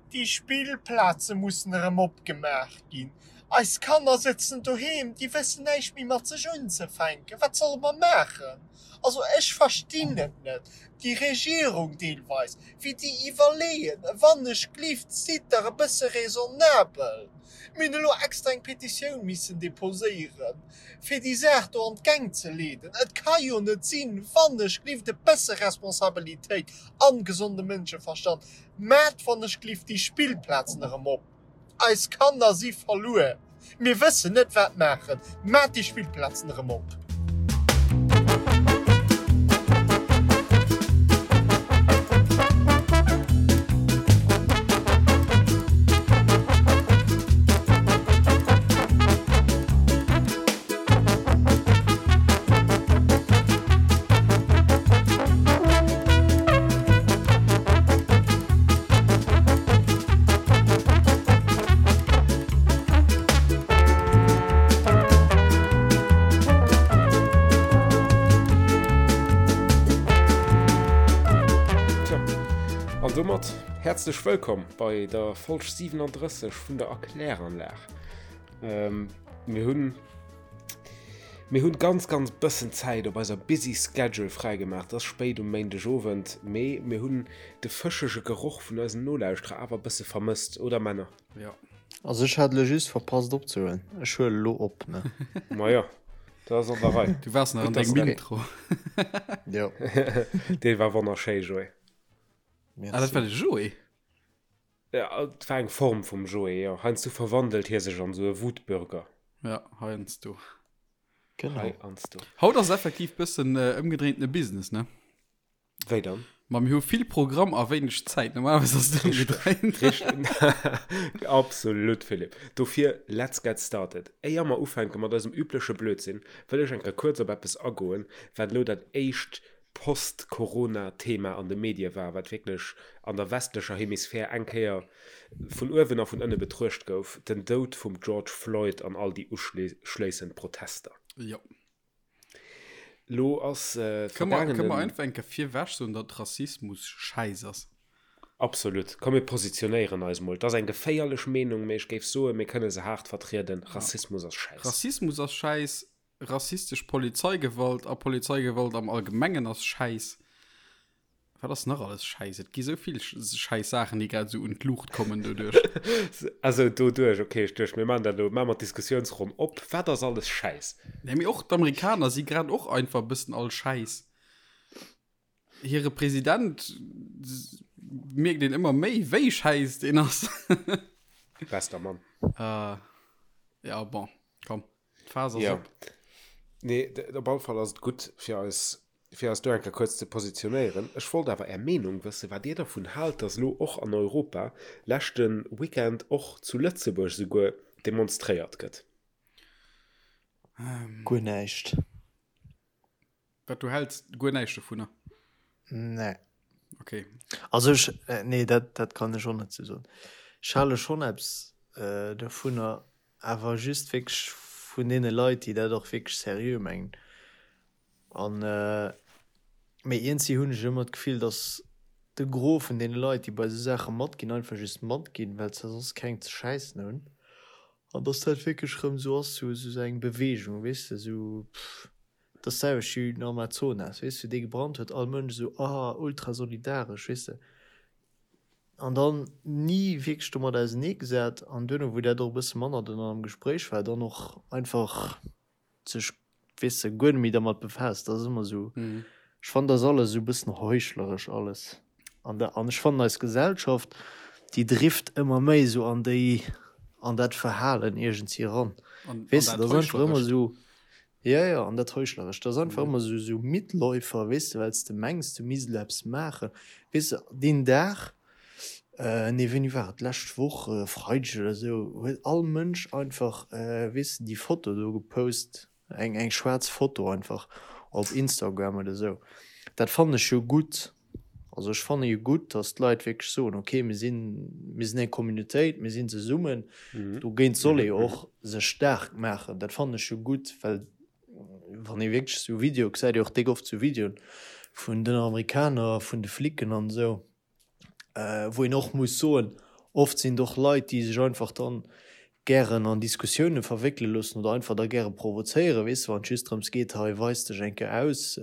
Déi Spillplaze mussen erëm opgemaach ginn. Eis Kanner sëtzen doheem, déi wëssen näischt méi mat sech unzefänken. Wat solle mer maachen? Also ech verstinn et net, déi Regierung deelweis, wéi déi iwwerleeën. Wannechglift, sidd dach e bësse raisonnabel. Mir hunn elo extra eng Petitioun missen deposéieren, fir déi Saach do an d'Gäng ze leeden. Et ka jo net sinn, wannechglift, e bësse Responsabilitéit an gesonde Mënscheverstand, Maat wann ech glift déi Spillplazen erem op. Eis Kanner si verluer. Mir wëssen net wat maachen. Maat déi Spillplazen erem op. An domat häerzlech wëllkomm bei der Folg 37 vun der Erkläranlag. Mir hunn Mir hunn ganz ganz bëssen Zäit op eiser busy schedule fräigemaach. Et ass spéit um Méindeg Owend, mee mir hunn de fëschege Geroch vun eisen Nolauschterer awer bësse vermësst, oder Männer? Jo. Also ech hat elo just verpasst opzehuelen. Ech huele lo op, ne? Majo, dat ass an der Rei. Du waars nach an dengem Intro. Jo. Dee war wonnerschéi, Joé. Merci. Ah, dat war de Joé? Ja, et war eng Form vum Joé, jo. Heiansdo verwandelt hie sech an esou e Wutbürger. Ja, heiansdo. Genau. Heiansdo. Haut ass effektiv bëssen äh, ëmgedréintene Business, ne? Wéi dann? Ma mir hu vill Programm a wéineg Zäit. Normalerweis ass et ëmgedréint. Richteg. Absolut, Philippe. Dofir, let's get started. Éier mer ufänke mat eisem übleche Blödsinn, wëll ech eng Kéier kuerz op eppes agoen, wat elo dat éischt Post-Corona-Thema an de Medie war, wat wierklech an der westlecher Hemisphär eng Kéier vun uewen a vun ënne betruecht gouf, den Doud vum George Floyd an all déi uschléissend Protester. Jo. Lo ass Kënne mer, kënne mer einfach eng Kéier virwech soen, datt Rassismus schäiss ass? Absolut. Komm mir positionéieren eis mol. Et ass eng geféierlech Meenung, mee ech géif soen, mir kënne se haart vertrieden, Rassismus ass schäiss. Rassismus ass schäiss, Rassistesch Polizeigewalt a Polizeigewalt am Allgemengen ass schäiss. Wat ass nach alles schäiss? Et gi sou vill schäiss Saachen, déi grad esou un d'Luucht kommen doduerch. Also doduerch, okay, ech duecht, mir maachen dat elo, maache mer d'Diskussiounsronn op. Wat ass alles schäiss? Nee, mee och d'Amerikaner si grad och einfach e bëssen all schäiss. Hire President mierkt een ëmmer méi, wéi schäiss deen ass. Bester Mann. Ja, bon, komm. D'Phas ass Ja. op. Nee, op alle Fall ass et gutt, fir eis, fir eis do eng Kéier kuerz ze positionéieren. Ech wollt awer Är Meenung wëssen, wat Dir dervun haalt, dass elo och an Europa, leschte Weekend och zu Lëtzebuerg souguer, demonstréiert gëtt. Guer näischt. Wat, du häls guer näischt dovunner? Nee. Okay. Also ech, nee, dat, dat kann ech och net sou soen. Ech hale schonn eppes dovunner, awer just wierklech vun deene Leit, déi dat och wierklech seriö mengen. An, mee iergendwéi hunn ech ëmmer d'Gefill, datt de Gros vun deene Leit, déi bei esou Saache matginn, einfach just matginn, well se soss keng ze schäissen hunn. An datt dat wierklech erëm esou ass, sou eng Beweegung, weess de, sou, pff. Dat ass d'selwecht wéi den Amazonas, weess de, dee gebrannt huet, all Mënsch esou, ah, ultra solidaresch, weess de. An dann ni wierklech domat auseneegesat an duerno, wou dat och e bësse manner dann am Gespréich war, dann och einfach sech, weess de, guer net méi dermat befaasst. Dat ass ëmmer esou, ech fannen, dat ass alles esou e bëssen heuchleresch alles. An da, an ech fannen, eis Gesellschaft, déi drift ëmmer méi esou an déi, an dat Verhalen iergendwéi eran, weess de, dat ass einfach ëmmer esou. Jo, jo, an dat Heuchlerescht, dat ass einfach ëmmer esou, esou Mitläufer, weess de, well s de mengs, du misst elo eppes maachen. Weess de, deen Dag, nee, wéini war et, d'lescht Woch, e Freideg oder esou, huet all Mënsch einfach, weess de, déi Foto do gepost, eng, eng schwaarz Foto einfach op Instagram oder esou. Dat fannen ech jo gutt. Also ech fanne jo gutt, datt d'Leit wierklech soen, okay, mir sinn, mir sinn eng Communautéit, mir sinn zesummen. Dogéint soll ee jo och sech staark maachen. Dat fannen ech jo gutt, well wann ee wierklech esou Videoe gesäit, ee och déck oft esou Videoen vun den Amerikaner, vun de Flicken an esou, wou een och muss soen, Oft sinn et och Leit, déi sech einfach dann gären an Diskussioune verwéckele loossen oder einfach da gäre provozéieren, weess de, wann et just drëms geet, hei weis dech eng Kéier aus,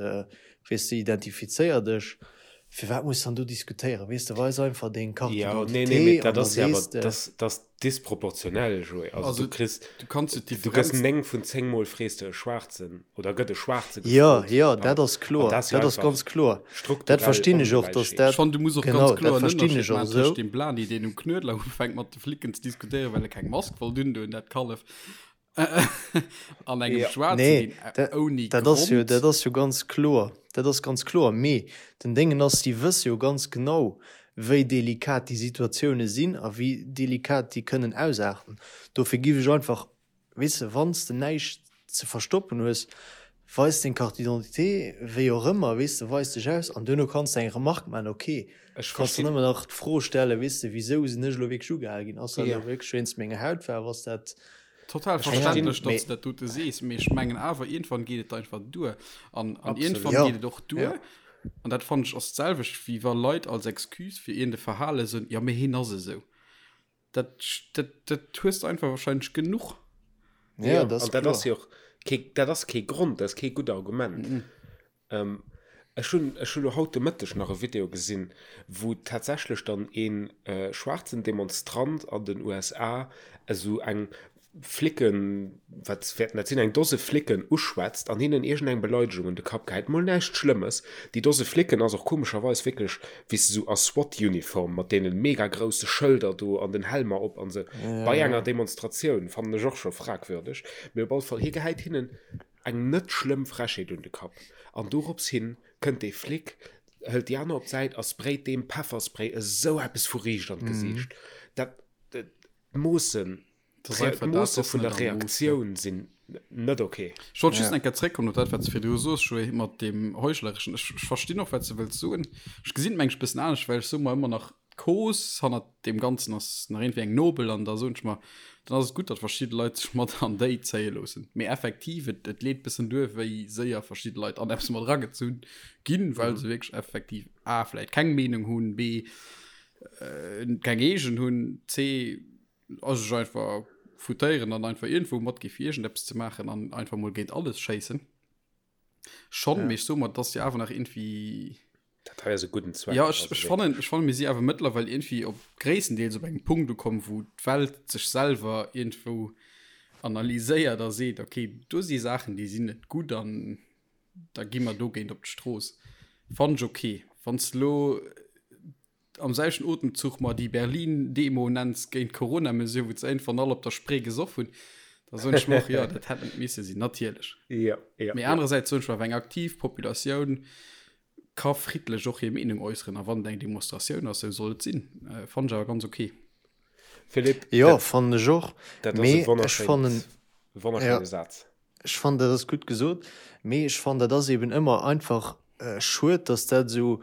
weess de, identifizéier dech. Firwat muss dann do diskutéieren, weess de, weis einfach deng Carte Ja, nee, nee, mee d'identité an dat da ass jo awer, sees de. dat dat ass disproportionell, Joé. Also Also du kriss, du kanns jo du gëss d'Differenz. 9 vun 10 Mol frees de e Schwaarzen oder gëtt e Schwaarze Jo, gefrot. jo, dat An ass kloer, dat ass jo dat ass einfach ganz kloer. Dat strukturell verstinn ech och, dass Ongläichheet. Ech dat, fannen, du muss och ganz genau, dat kloer en verstinn Ënnerscheed ech och maachen tëscht esou. deem Blani, deen um Knuedler ufänkt mat de Flicken ze diskutéieren, well e keng Mask wollt undoen, dat Kallef, an engem Ja. Schwaarzen, Nee, deen dat, ouni dat ass jo, Grond. dat ass jo ganz kloer, dat ass ganz kloer. Mee den Déngen ass, si wësse jo ganz genau, wéi delikat déi Situatioune sinn a wéi delikat déi kënnen ausaarten. Dofir giff ech einfach, weess de, wann s de näischt ze verstoppen hues, weis deng Carte d'identité, wéi och ëmmer, weess de, weis dech aus an duerno kanns de eng Remarque maachen, ok. Ech Kanns de verstinn. nëmmen nach d'Fro stellen, weess de, wisou sinn ech elo wierklech ugehale ginn? Ass dat Ja. elo wierklech wéinst menger Hautfaarf? Ass dat Total Ech verstinn. verständlech, mee datt s de dat dote sees, mee ech mengen awer, iergendwann geet et einfach duer. An, an Absolut. iergendwann ja, geet et och duer, ja. an dat fannen ech ass d'selwecht, wéi wa Leit als Excuse fir iergend e Verhale soen, jo, mee hien ass esou. Dat, dat, dat hues de einfach wahrscheinlech genuch. Ja, Ja, dat ass an dat ass kloer. jo och kee, dat ass kee Grond, dat ass kee gutt Argument. Mhm. Ähm, ech hunn, ech hu lo haut de Mëtteg nach e Video gesinn, wou tatsächlech dann een äh, schwaarzen Demonstrant an den USA esou eng Flicken, wat wäerten dat sinn, eng Dose Flicken uschwätzt an hinnen iergendeng Beleidegung un de Kapp gehäit. Mol näischt Schlëmmes. Déi Dose Flicken ass och komescherweis wierklech, wéi s de sou a SWAT-Uniform mat deene mega grousse Schëlder do an den Helmer op an sou. Ja, Bei enger ja. Demonstratioun fannen ech och scho fragwürdeg. Mee op alle Fall, hie gehäit hinnen Eng net schlëmm Frechheet un de Kapp. An dorops hin kënnt dee Flic, hëlt déi aner op d'Säit a sprayt deem Pefferspray esou eppes vu riicht an d'Gesiicht. Dat, d'Moossen, d'Moosse vun der Reaktioun sinn net ok. Ech wollt just eng Kéier zréckkommen op dat, wat s de virdru soos, Joé, mat deem Heuchlereschen. Ech verstinn och, wat s de wëlls soen. Ech gesinn et mengen ech e bëssen anescht, well ech soe mer ëmmer nach, D'Cause hannert deem Ganzen ass nach iergendwéi eng nobel an da soen ech mer, dann ass et gutt, datt verschidde Leit sech mat an déi zéie loossen. Mee effektiv, et, et leet bëssen duer, wéi séier verschidde Leit an eppes mat eragezunn ginn, well se wierklech effektiv a vläicht keng Meenung hunn, b keng eegen hunn, c a sech einfach foutéieren an einfach iergendwou matgi fir iergendeppes ze maachen an einfach mol géint alles schéissen. Schon, Ja. mee ech soe mer, et ass jo awer nach iergendwéi Dat hei ass e gudden Zweck. Ja, ech, also ech fannen, ech fannen, mir si awer mëttlerweil iergendwéi op gréisstendeels op engem Punkt ukomm, wou d'Welt sech selwer iergendwou analyséiert a seet, okay, do si Saachen, déi sinn net gutt an da gi mer dogéint op d'Strooss. Fannen ech okay. Wann s de lo am selwechten Otemzuch mer déi Berlin-Demo nenns géint d'Corona-Mesure, wou ze iergendwann all op der Spree gesoff hunn, da soen ech mer och, jo, dat hätt net misse sinn, natierlech. Ja, ja, Mee ja. anerersäits soen ech mer, awer eng aktiv Populatioun ka friddlech och hir Meenung äusseren a wann et eng Demonstratioun ass, sou soll et sinn. Fannen ech awer ganz ok. Philippe, Jo, dat, fannen ech och, dat ass e mee ech wonnerschéint, fannen, ja, wonnerschéine Saz. ech fannen dat ass gutt gesot, mee ech fannen dat ass eben ëmmer einfach schued, dass dat esou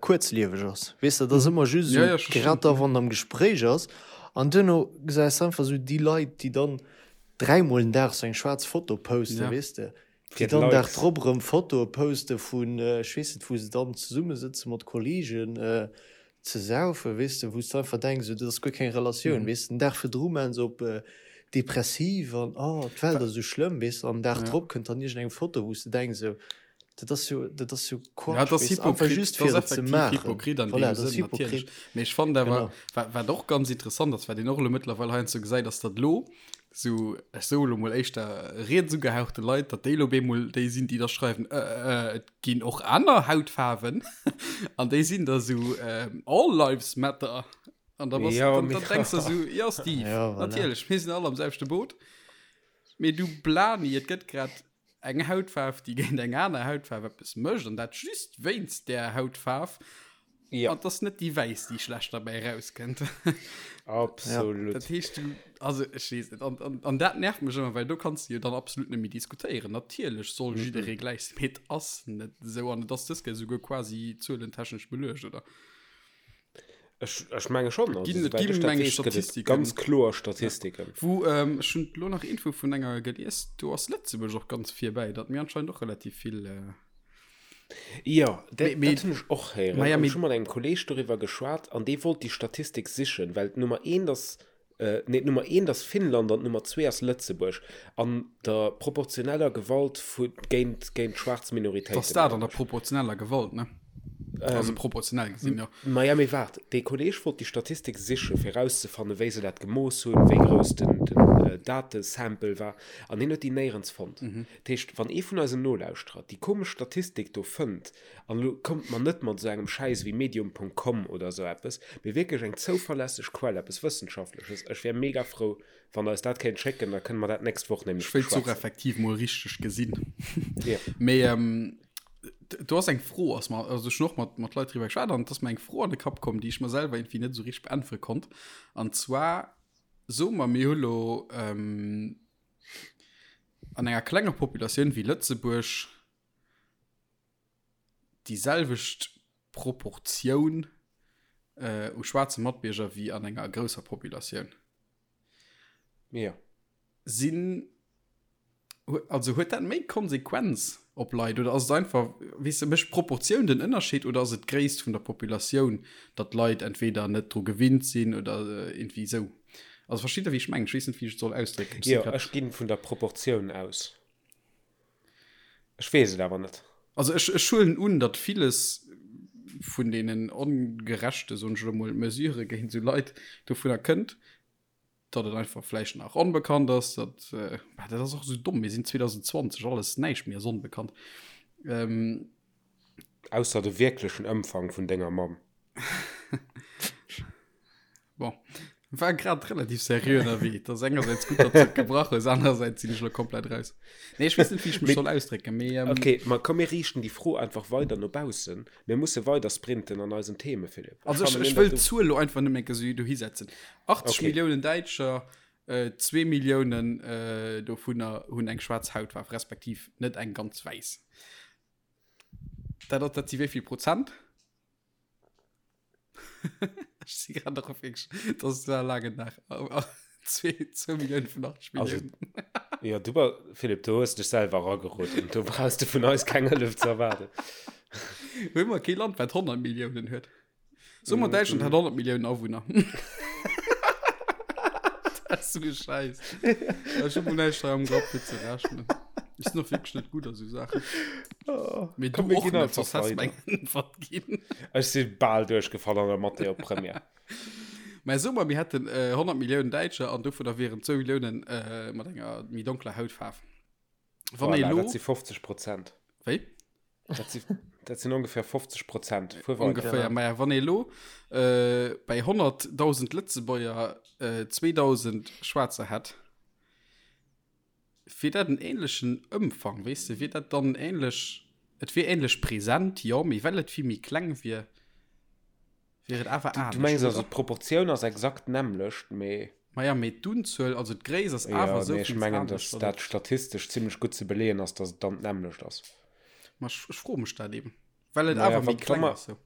kuerzlieweg ass. Weess de, dat ass ëmmer just Ja, esou ja, ech verstinn. grad da wann am Gespréich ass an duerno gesäis de einfach esou déi Leit, déi dann dräimol den Dag sou eng schwaarz Foto posten, Ja. weess de, déi Fir dann Dag d'Likes. drop erëm Fotoe poste vun ech weess net wou se dann zesummesëtze mat Kollegen ze saufen, weess de, wou s de einfach denks, esou dat ass guer keng Relatioun, weess de. Den Dag virdru maachen se op depressiv an oh d'Welt ass esou schlëmm, weess de, an den Dag Ja. drop kënnt dann iergendeng Foto wou s de denks esou, Dat ass jo, dat ass jo Ja, Quatsch, dat ass weess de, einfach hypokrit, just dat fir ass et ze effektiv maachen. hypokrit an Voilà, deem dat ass Sënn, natierlech. hypokrit. Mee ech fannen awer, Genau. wat, wat och ganz interessant ass, wat een och elo mëttlerweil heiansdo gesäit, ass, datt elo sou, ech soe elo mol éischter riets ugehauchte Leit, datt déi elo op eemol déi sinn, déi da schreiwen, äh, äh, et ginn och aner Hautfaarwen. An déi sinn da sou, ähm, All lives matter. An da bass, Ja, dann, mee dann denks de sou, jo Steve, Ja, voilà. natierlech, mir sinn all am selwechte Boot. Mee du Blani, et gëtt grad eng Hautfaarf, déi géint eng aner Hautfaarf eppes mécht, an dat just wéinst där Hautfaarf. Ja. An 't ass net déi wäiss, déi schlecht derbäi erauskënnt. Absolut. Dat heescht, du, also ech weess net, an, an, an dat nervt mech ëmmer, well do kanns du jo dann absolut net méi diskutéieren. Natierlech soll jidderee gläich sinn, mee et ass net esou an et ass dës Kéier esouguer quasi zuelentechnesch beluecht, oder? Ech, ech menge schon. Also, Ginn, et soweit ginn, ech dat meng weess, gëtt et Statistiken. ganz kloer Statistiken. Ja. Wou, ähm, ech hunn elo nach Info vun enger gelies, do ass Lëtzebuerg och ganz virbäi, datt mir anscheinend och relativ vill äh. Jo, dat hunn ech och héieren. An ech hu mat engem Kolleeg doriwwer geschwat an dee wollt déi Statistik sichen, well d'Nummer eent ass, nee, d'Nummer eent ass Finnland an d'Nummer zwee ass Lëtzebuerg an der proportioneller Gewalt vu géint géint schwaarz Minoritéiten. Dass dat an der proportioneller Gewalt, ne? Also proportionell gesinn, jo. Maja, mee waart, dee Kolleeg wollt déi Statistik sichen, fir erauszefannen, wéi se dat gemooss hunn, wéi grouss den Datesample war, an hien huet déi néierens fonnt. Dat heescht, wann ee vun eisen Nolauschterer déi komesch Statistik do fënnt, an elo kommt mer net mat esou engem Schäiss wéi Medium.com oder esou eppes, mee wierklech eng zouverlässeg Quell, eppes Wëssenschaftleches, ech wär mega frou, wann Der eis dat kéint schécken, da kënne mer dat d'nächst Woch nämlech Ech wéilt se och beschwätzen. effektiv mol richteg gesinn. Ja. Mee do ass eng Fro, ass mer, also ech hunn och mat, mat Leit driwwer geschwat an et ass mer eng Fro an de Kapp komm, déi ech mer selwer irgendwie net esou richteg beäntwere konnt. An zwar, soe mer, mir hu lo an enger klenger Populatioun wéi Lëtzebuerg déi selwecht Proportioun äh, u schwaarze Matbierger wéi an enger grousser Populatioun. Ja. Sinn also huet dat méi Konsequenz op Leit oder ass et einfach weess de mécht d'Proportioun den Ënnerscheed oder ass et d'Gréisst vun der Populatioun, datt d'Leit entweder net dru gewinnt sinn oder irgendwie esou? Also versteet der wéi ech mengen? Ech weess net wéi ech et soll ausdrécken. Jo, ech ginn vun der Proportioun aus. Ech weess et awer net. Also ech, ech huelen un, datt villes vun deenen ongerechte, soen ech elo mol, Mesurë géint esou Leit dovunner kënnt, datt et einfach vläicht nach onbekannt ass, datt, bah, dat ass och esou domm, mir sinn 2020, alles, näischt méi ass onbekannt. Ähm. Ausser de wierklechen Ëmfang vun denger Mamm. Bon, war grad relativ seriö ënnerwee. Dat ass engersäits gutt, datt s de et gebrach hues, anerersäits sinn ech elo komplett raus. Nee, ech weess net, wéi ech mech soll ausdrécken, mee. Ähm, okay, ma komm, mir riichten déi Fro einfach weider no baussen. Mir musse weider sprinten an eisen Theme, Philippe. Also ech, ech wëll d'Zuel elo einfach nëmme eng Kéier dohi setzen. 80 okay. Milliounen Däitscher, äh, zwee Milliounen äh, dovunner hunn eng schwaarz Hautfaarf, respektiv net eng ganz wäiss. Dat, dat si wéi vill Prozent? Ech si grad nach op wierklech, dat war e laangen Dag. 2 Millioune vun 80 Milliounen. Jo, du ba Philippe, du hues dech selwer erageroden. Do brauchs de vun eis keng Hëllef ze erwaarden. Hu mer kee Land, wat 100 Milliounen huet? Soe mer, Däitschland hätt 100 Milliounen Awunner. Dat ass esou e Schäiss. Ech hu mol näischt hei am Grapp, fir ze rechnen. Ech sinn och wierklech net gutt a sou Saachen. Oh, Mee du och net, soss häss du eng Äntwert ginn. Ech si bal duerchgefall an der Mathé op Première. Mä soe mer, mir hätten äh, 100 Milliounen Däitscher an dovunner wieren 2 Milliounen äh, mat enger méi donkler Hautfaarf. Wann ee Voilà, lo. dat si 50 Prozent. Wéi? Dat si, dat sinn ongeféier 50 Prozent. Fuer weider. Ongeféier. Maja, wann ee lo äh, bei 100.000 Lëtzebuerger äh, 2.000 Schwaarzer hätt, Wier dat en ähnlechen Ëmfang, weess de, wier dat dann ähnlech, et wier ähnlech present, jo, mee well et vill méi kleng wier, wier et awer anescht, Du mengs also d'Proportioun ass exakt d'nämmlecht, mee. Maja, mee d'Unzuel, also d'Gréisst ass awer esou vill anescht. Jo, mee ech mengen, datt dat statistesch zimlech gutt ze beleeën ass, datt et dann d'nämmlecht ass. Ma ech froe mech dat eben, well et awer méi kleng ass esou.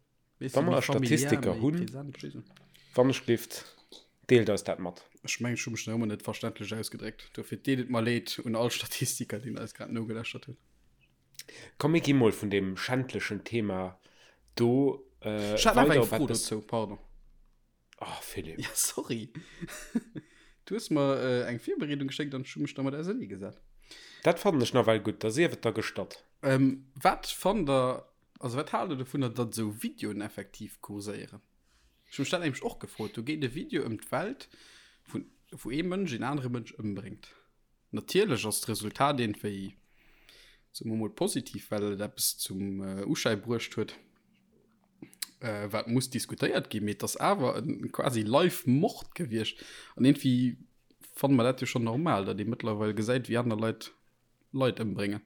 Wa mer Statistiker hunn, wann ech gelift, deelt eis dat mat. Ech mengen, ech hu mech nach ëmmer net verständlech ausgedréckt. Dofir deet et mer leed un all Statistiker, déi eis grad nogelauschtert hunn. Komm, mir gi mol vun deem schändlechen Thema do weider op eppes. Ech hat nach eng Fro dozou, pardon. Oh, Philippe. Ja, sorry. Du hues mer äh, eng Virbereedung geschéckt an ech hu mech dermat auserneegesat. Dat fannen ech nawell gutt, da sief et der gestatt. Ähm, wat fannt der, also wat haalt der dovunner, datt esou Videoen effektiv kurséieren? Ech hu mech dat nämlech och gefrot. Do geet e Video ëm d'Welt, vun, wou ee Mënsch een anere Mënsch ëmbréngt. Natierlech ass d'Resultat iergendwéi, soe mer mol, positiv, well et eppes zum Uschäi bruecht huet, wat muss diskutéiert ginn. Mee et ass awer e quasi Live-Mord gewiescht. An iergendwéi fanne mer dat jo schonn normal, datt ee mëttlerweil gesäit, wéi aner Leit Leit ëmbréngen.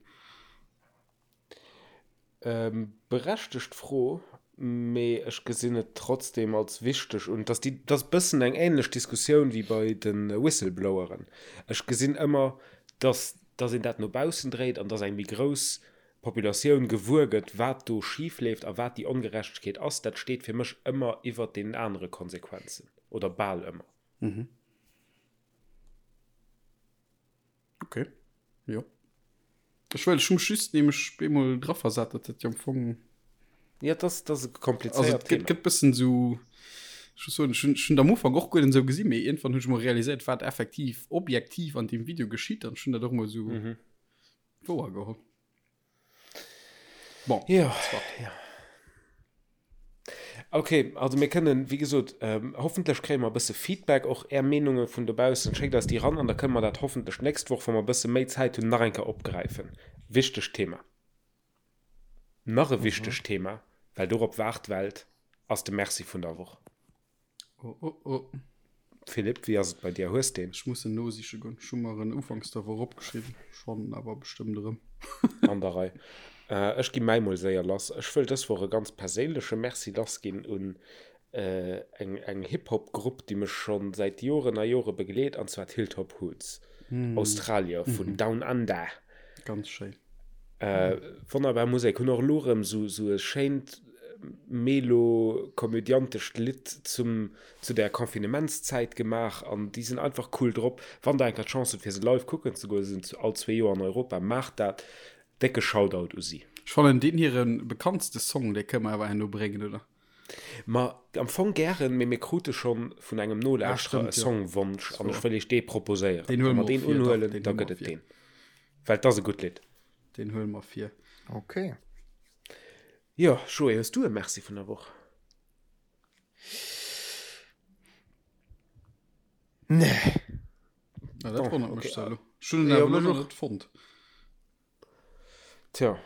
Berechtegt Fro, mee ech gesinn et trotzdem als wichteg un. Dass déi, dat ass e bëssen eng ähnlech Diskussioun wéi bei de Whistlebloweren. Ech gesinn ëmmer, dass, dass een dat no baussen dréit an dass eng méi grouss Populatioun gewuer gëtt, wat do schif leeft a wat déi Ongerechtegkeet ass. Dat steet fir mech ëmmer iwwert deenen anere Konsequenzen, oder bal ëmmer. Okay, jo. Ech wëll, ech hu mech just nämlech bemol draversat, datt dat jo am Fong. Ja, dat ass e komplizéiert Thema. Et gëtt bëssen esou, ech muss soen, ech hunn, ech hunn et am Ufank och guer net esou gesinn, mee iergendwann hunn ech emol realiséiert, wat effektiv objektiv an deem Video geschitt an ech hunn dat och emol esou wouer geholl. Bon, ja, ja. Okay, also mir kënnen, wéi gesot, ähm, hoffentlech kréie mer e bësse Feedback, och Är Meenunge vun dobaussen. Schéckt eis déi ran an da kënne mer dat hoffentlech d'nächst Woch, wa mer e bësse méi Zäit hunn, nach eng Kéier opgräifen. Wichtegt Thema. Nach e wichtegt Thema, well dorop waart d'Welt, ass de Merci vun der Woch. Oh, oh, oh. Philippe, wéi ass et bei dir? Hues deen? Ech muss en nosiche goen. Ech hu mer en ufanks der Woch opgeschriwwen. Ech fannen en awer bestëmmt erëm. An der Rei. Ech gi mäi mol séier lass. Ech wëll dës Woch e ganz perséinleche Merci lassginn un eng eng Hip-Hop-Grupp, déi mech scho säit Joren a Jore begleet, an zwar d'Hilltop Hoods, Australier vun Down Under. Ganz schéin. Wonnerbar Musek. Hunn och elo erëm sou e schéint melo-komödiantescht Lidd zum, zu der Confinementszäit gemaach an déi sinn einfach cool drop. Wann der eng Kéier d'Chance hutt fir se live kucken ze goen, se sinn all zwee Joer an Europa, maacht dat. Décke Shoutout u si. Ech fannen deen hire bekanntste Song, dee kënne mer awer herno bréngen, oder? Ma am Fong gären, mee mir krute schonn vun engem Nolauschterer e Songwonsch an ech wëll iech dee proposéieren. Deen huele mer och vir, dach, deen da gëtt et deen. Well 't ass e gutt Lidd. Deen huele mer vir. Ok. Jo, Joé, hues du e Merci vun der Woch? Nee. Na, dat wonnert mech zwar elo. Ech hunn en awer elo nach net fonnt. Tja,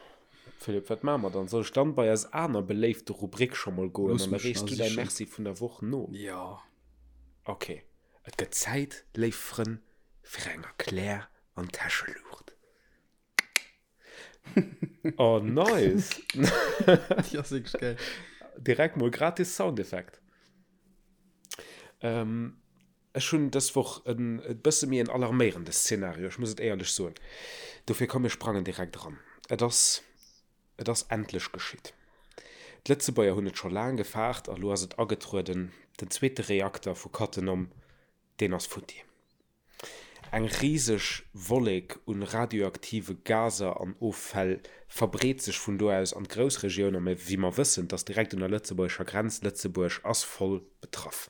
Philippe, wat maache mer dann? Soll ech dann bei eis aner beléifte Rubrik scho mol goen Looss an da mech reechs nach du däi sichen. Merci vun der Woch no? Jo. Ok, et gëtt Zäit, léif Frënn, fir eng Erklär an Täscheluucht. Oh, nice! Déi ass wierklech gäil. Direkt mol gratis Soundeffekt. Ähm, Ech hunn dës Woch en e bësse méi en alarméierende Szenario, ech muss et éierlech soen. Dofir komm mir sprangen direkt eran. Et ass, et ass endlech geschitt. D'Lëtzebuerger hunn et scho laang gefaart a lo ass et agetrueden, den zweete Reakter vu Cattenom, deen ass futti. Eng riseg Wollek un radioaktive Gaser an Offäll verbreet sech vun do aus an d'Groussregioun a wéi mer wëssen, 't ass direkt un der lëtzebuergescher Grenz, Lëtzebuerg ass voll betraff.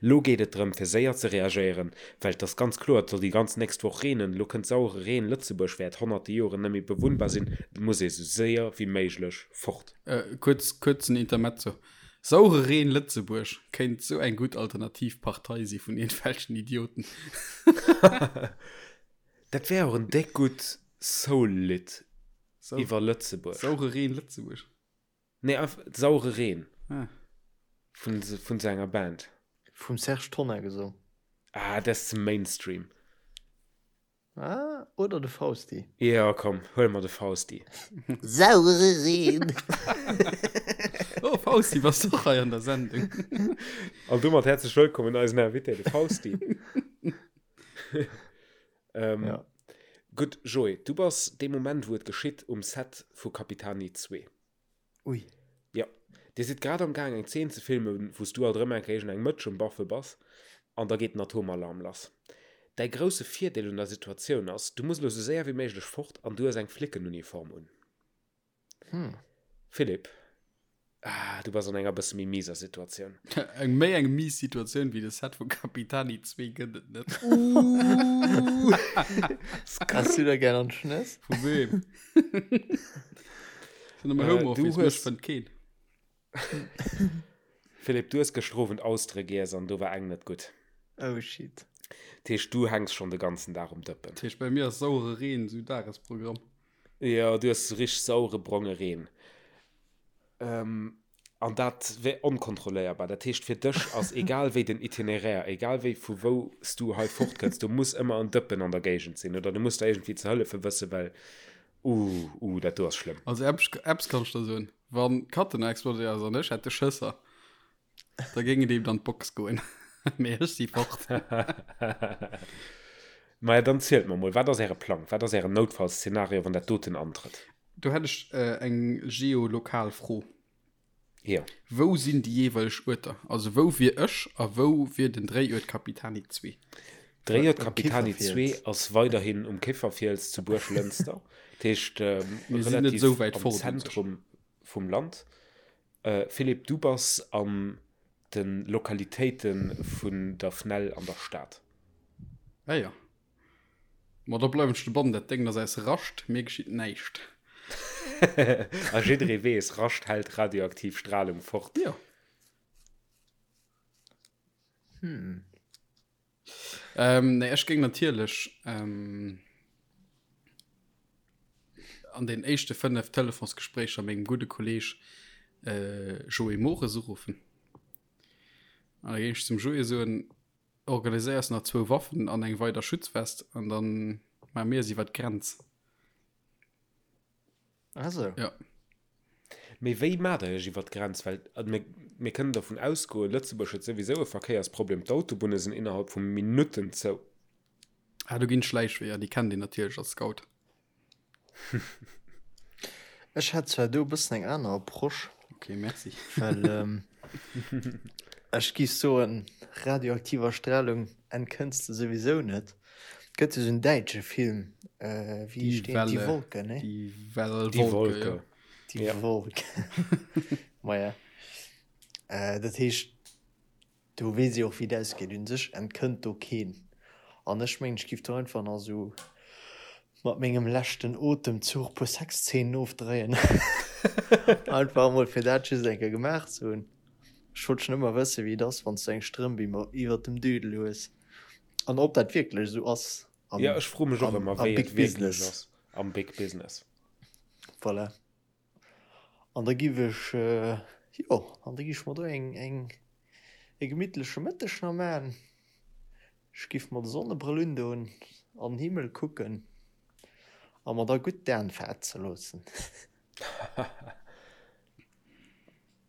Lo geet et drëm fir séier ze reagéieren, well et ass ganz kloer, et soll déi ganz nächst Woch reenen, lo kënnt sauere Reen, Lëtzebuerg wäert honnerte Joren net méi bewunnbar sinn, et muss ee sou séier wéi méiglech fort. Kuerz, kuerzen Intermezzo, Saure Reen Lëtzebuerg kéint sou eng gutt alternativ Partei si vun iergendwelchen Idioten. Dat wär och en déck gutt Soul-Lidd iwwer Lëtzebuerg. Saure Reen Lëtzebuerg? Nee, einfach Saure Reen. Ah. Vun, vun sou enger Band. Vum Serge Tonnar gesong. Ah, dat ass ze Mainstream. Ah, oder de Fausti. Jo, komm, huele mer de Fausti. Saure Reen! Oh, Fausti, bass du och hei an der Sendung? An domat häerzlech wëllkomm un eisen Invité, de Fausti. ähm, Ja. Gutt, Joé, du bass dee Moment, wou et geschitt, um Set vu Capitani 2. Ui. Jo. Dir sidd grad am Gaang eng Zeen ze filmen, wou s du alt erëm eng Kéier eng Mëtsch um Baffe bass, an da geet den Atomalarm lass. Däi grousse Virdeel un der Situatioun ass, du muss elo sou séier wéi méiglech fort an du hues eng Flickenuniform un. Hm. Philippe, ah, du bass an enger bësse méi miser Situatioun. Eng méi eng mies Situatioun wéi de Set vu Capitani 2 gëtt et net. Has du der gär an d'Schnëss? Vu weem? Sinn am Äh, Homeoffice, du mech hues- fënnt keen. Philippe, du hues gëschter Owend Austere giess an do war eng net gutt. Oh shit. Dat heescht, du hänks schonn de ganzen Dag um Dëppen. Dat heescht, bei mir ass sauere Reen sou Dagesprogramm. Jo, du hues sou richteg sauere bronge Reen. Ähm, an dat wär onkontrolléierbar. Dat heescht, fir dech ass egal wéi den Itinéraire, egal wéi vu wou s du hei fortkënns, do muss ëmmer en Dëppen an der Géigend sinn oder du muss der iergendwéi ze hëllefe wëssen, well uh, uh, dat do ass schlëmm. Also eppes, eppes kann ech der soen, Wann d'Katena explodéiert ass an ech hätt de Schësser, da géing et eben an d'Box goen. Mee ech si fort. Maja, dann zielt mer mol, wat ass äre Plang? Wat ass ären Noutfallszenario, wann dat doten antrëtt? Do hätt ech eng geolokal Fro. Jo. Wou sinn déi jeeweileg Uerter? Also wou wier ech a wou wier den Dréiuert Capitani 2? Dréiert Capitani 2 ass weiderhin um Kéfferfiels zu Buerglënster, dat heescht relativ am Zentrum vum Land. Philippe, du bass an de Lokalitéite vun der FNEL an der Stad. Ah jo. Ma da bleiwen ech dobannen, dat Déngen ass aus Rascht, mir geschitt näischt. A jidderee weess, Rascht hält radioaktiv Stralung fort. Jo. Hm. Ähm, nee, ech géing natierlech ähm, an den éischte 5 Telefonsgespréicher mengem gudde Kolleg äh, Joé Mores uruffen. An da géing ech zum Joé soen, organiséiers nach zwou Waffen an eng weider Schutzwest an dann maache mir es iwwer d'Grenz. Also. Ja. Mee wéi maacht der iech iwwer d'Grenz? Well mir, mir kënnen dervun ausgoen, Lëtzebuerg huet souwisou e Verkéiersproblem, d'Autobunne sinn innerhalb vu Minutten zou. Ah, do ginn Schläichweeër, déi kennt een natierlech als Scout. Ech hätt zwar do e bëssen eng aner Approche. Ok, merci. Well ähm, ech giff soen, radioaktiver Strahlung entkënns de souwisou net. Gëtt jo sou en däitsche Film, äh, wéi Die heescht deen? Die Welle. Wolke, ne? Die Well Die Wolke, Wolke. ja. Die Ja. Wolke. Maja. Äh, dat heescht, do weess ee och, wéi et ausgeet. Un sech entkënnt do keen. An ech mengen, ech giff do einfach nach sou mat mengem leschten Otemzuch puer Sexzeenen ofdréien. Einfach emol fir dat just eng Kéier gemaach ze hunn. Ech wollt schonn ëmmer wëssen, wéi et ass, wann s du eng Strëmp iwwert dem Dödel hues. An ob dat wierklech esou ass am, Ja, ech froe mech och am, ëmmer, am wéi Big et wierklech Business. ass am Big Business. Voilà. An da giff ech, jo, an da giff ech mer do eng, eng, e gemittleche Mëtteg nach maachen. Ech giff mer de Sonnebrëll undoen, an den Himmel kucken a mer da gutt d'Aen fetze loossen.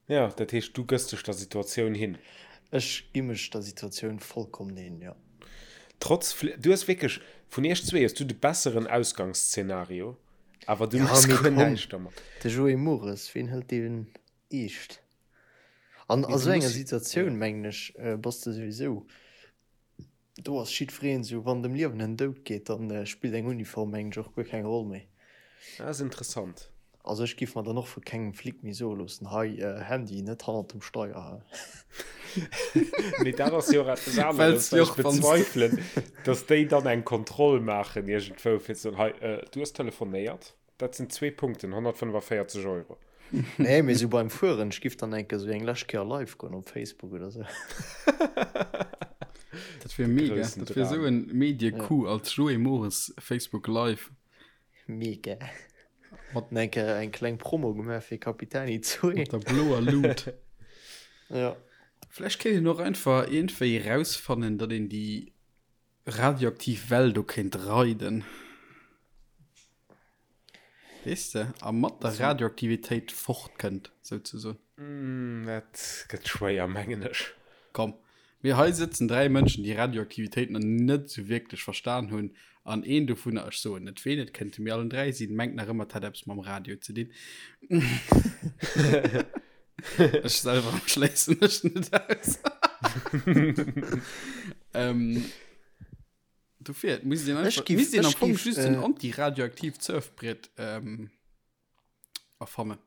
Jo, dat heescht, du gëss dech der Situatioun hin? Ech gi mech der Situatioun vollkommen hin, jo. Trotz Fl du hues wierklech, vun iech zwee hues du de besseren Ausgangsszenario, awer du Ja, méchs mee guer komm, näischt dermat. de Joé Mores, ween hëlt deen eescht? An Mee a du sou enger muss, Situatioun, jo. mengen ech, bass de souwisou Do ass jiddwereen esou, wann et ëm Liewen an Doud geet, dann spillt eng Uniform mengen ech och guer keng Roll méi. Dat ass interessant. Also ech giff mer dann och vu kengem Flic méi soe loossen, hei Handy net hannert dem Steier. Mee dat ass jo och eppes aneres, well ech bezweifelen, datt déi dann eng Kontroll maachen iergendwou fir ze soen, hei du hues telefonéiert. Dat sinn zwee Punkten, 145 Euro. Nee, mee sou beim Fueren, ech giff dann enke sou eng lescht Kéier live goen op Facebook oder sou. Dat wier mega. Groussen Dat wier sou Dram. en Medie-Coup als Joé Mores Facebook Live. Mega. Mat enke eng kleng Promo gemaach fir Capitani 2. Mat der bloer Luut. Ja. Vläicht kéint een och einfach iergendwéi rausfannen, datt een déi radioaktiv Well do kéint reiden. Weess de, a mat der Radioaktivitéit fortkënnt, souzesoen. Dat gëtt schwéier, mengen ech. Komm, mir hei sëtzen 3 Mënschen, déi Radioaktivitéit nach net esou wierklech verstan hunn, an een dovunner, ech soen net ween, et kënnte mir allen 3 sinn, mengt nach ëmmer, et hätt eppes mam Radio ze dinn. Ech selwer schléissen mech net aus. ähm, Dofir, et misst een einfach, giff- misst een am ech Fong giff, just en äh, antiradioaktiivt Surfbrett ähm, erfannen.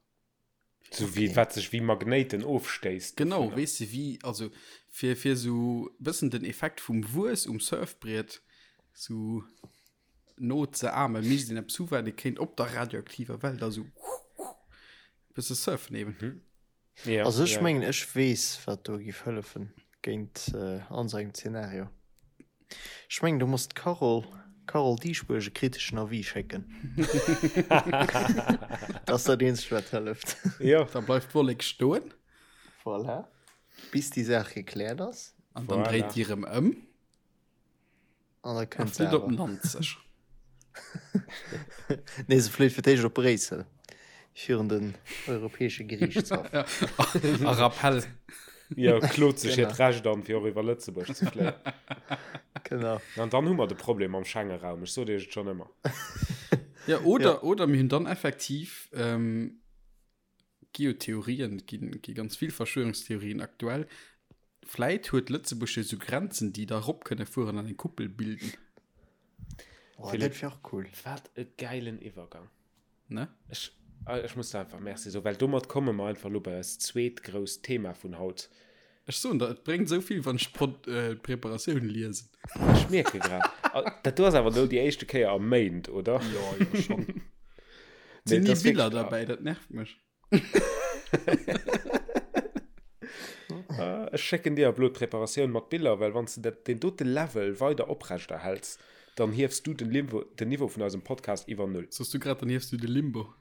So wéi, wat sech wéi Magnéiten ofstéisst. Genau, dovunner. weess de wéi, also fir, fir sou bëssen den Effekt vum Wuess um Surfbriet sou no ze ahmen, misst een eppes hu wat ee kéint op der radioaktiver Well da sou bësse surfen eben. Ja, Also ech ja. mengen ech weess wat do giff hëllefen géint an sou engem Zeenario. Ech mengen do muss d'Carole Carole Dieschbourg e kriteschen Avis schécken. Dat ass dat eenzegt wat hëlleft. Jo. Da bleift d'Wollek stoen. Voilà. Bis déi Saach gekläert ass. An dann Voilà. dréit déi erëm ëm. An da A kënnt se flitt op awer. Nanzeg. Nee, se fléit fir d'éischt op Bréissel, virun den Europäesche Geriichtshaff. A Rappell. Jo, klot sech hiert Genau. Recht an, fir och iwwer Lëtzebuerg ze fléien. Genau. An dann hu mer de Problem am Schengenraum, ech sot iech et schonn ëmmer. Ja, oder, oder mir hunn dann effektiv ähm, gi jo Theorien, gi, gi ganz vill Verschwörungstheorien aktuell. Vläit huet Lëtzebuerg jo sou Grenzen, déi da rop kënne fueren an eng Kuppel bilden. Oh, dat wär och cool. Wat e gäilen Iwwergang. Ne? Ech, ech muss der einfach Merci soen, well domat komme mer einfach elo bei eist zweet grousst Thema vun haut. Ech soen der, et bréngt esou vill, wann ech d'Preparatioun liesen. Ech mierke grad. Dat do ass awer elo déi éischte Kéier a Méint, oder? Jo, jo, schonn. Et sinn ni Biller derbäi, dat nervt mech. Ech schécken dir ab elo d'Preparatioun mat Biller, well wann s de dat, deen dote Level weider oprechterhäls, dann hiefs du den Limbo, den Niveau vun eisem Podcast iwwer Null. Soss du grad, dann hiefs du de Limbo.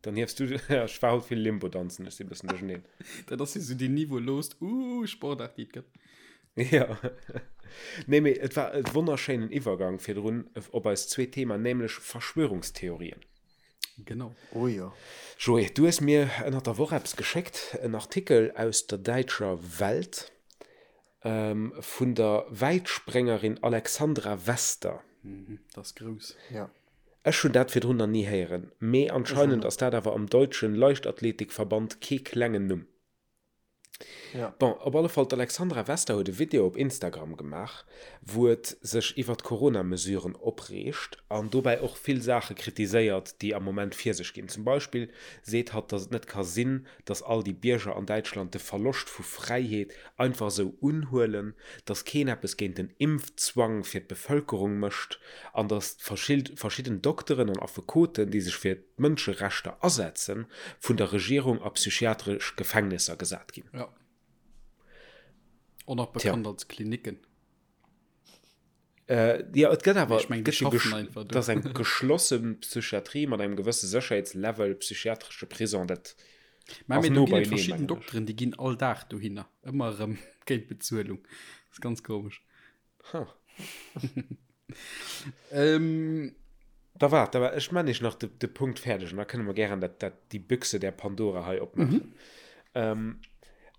Dann hiefs du, ech war haut vill Limbo danzen, ech si bëssen duercherneen. Dat ass jo sou déi niveaulost uh Sportaart, déi et gëtt. Jo. Nee, mee et war e wonnerschéinen Iwwergang virdrun op eist zweet Thema, nämlech Verschwörungstheorien. Genau. Oh jo. Joé, du hues mir ënnert der Woch eppes geschéckt, en Artikel aus der däitscher Welt vun der Wäitspréngerin Alexandra Wester. Mhm, dat ass grouss. Ja. Ech hunn dat virdrun nach ni héieren, mee anscheinend ass dat awer am deutschen Leichtathletikverband kee klengen Numm. Ja. Bon, op alle Fall, d'Alexandra Wester huet e Video op Instagram gemaach, wou et sech iwwer d'Corona-Mesuren opreegt an dobäi och vill Saache kritiséiert, déi am Moment vir sech ginn. Zum Beispill seet hatt, datt et net ka sinn, datt all déi Bierger an Däitschland de Verloscht vu Fräiheet einfach esou unhuelen, datt keen eppes géint den Impfzwang fir d'Bevëlkerung mécht an datt verschidden Dokteren an Affekoten, déi sech fir d'Mënscherechter asetzen, vun der Regierung a psychiatresch Gefängnisser gesat ginn. Ja. Och nach bekannt als Klinicken. Äh, ja, et gëtt awer, Ich mein, die gëtt jo schaffen gesch- einfach do. dat ass eng geschlosse Psychiatrie mat engem gewësse Sécherheetslevel, psychiatresche Prison, dat Mä ass mee no do ginn et beieneen, verschidden mengen ech. Dokteren, déi ginn all Dag dohinner. Ëmmer erëm géint Bezuelung. Dat ass ganz komesch. Huh. Ähm, Da waart, da waart, ech man iech nach de, de Punkt fäerdeg an da kënne mer gären dat, dat, déi Büchse der Pandora hei opmaachen. Mhm. Ähm,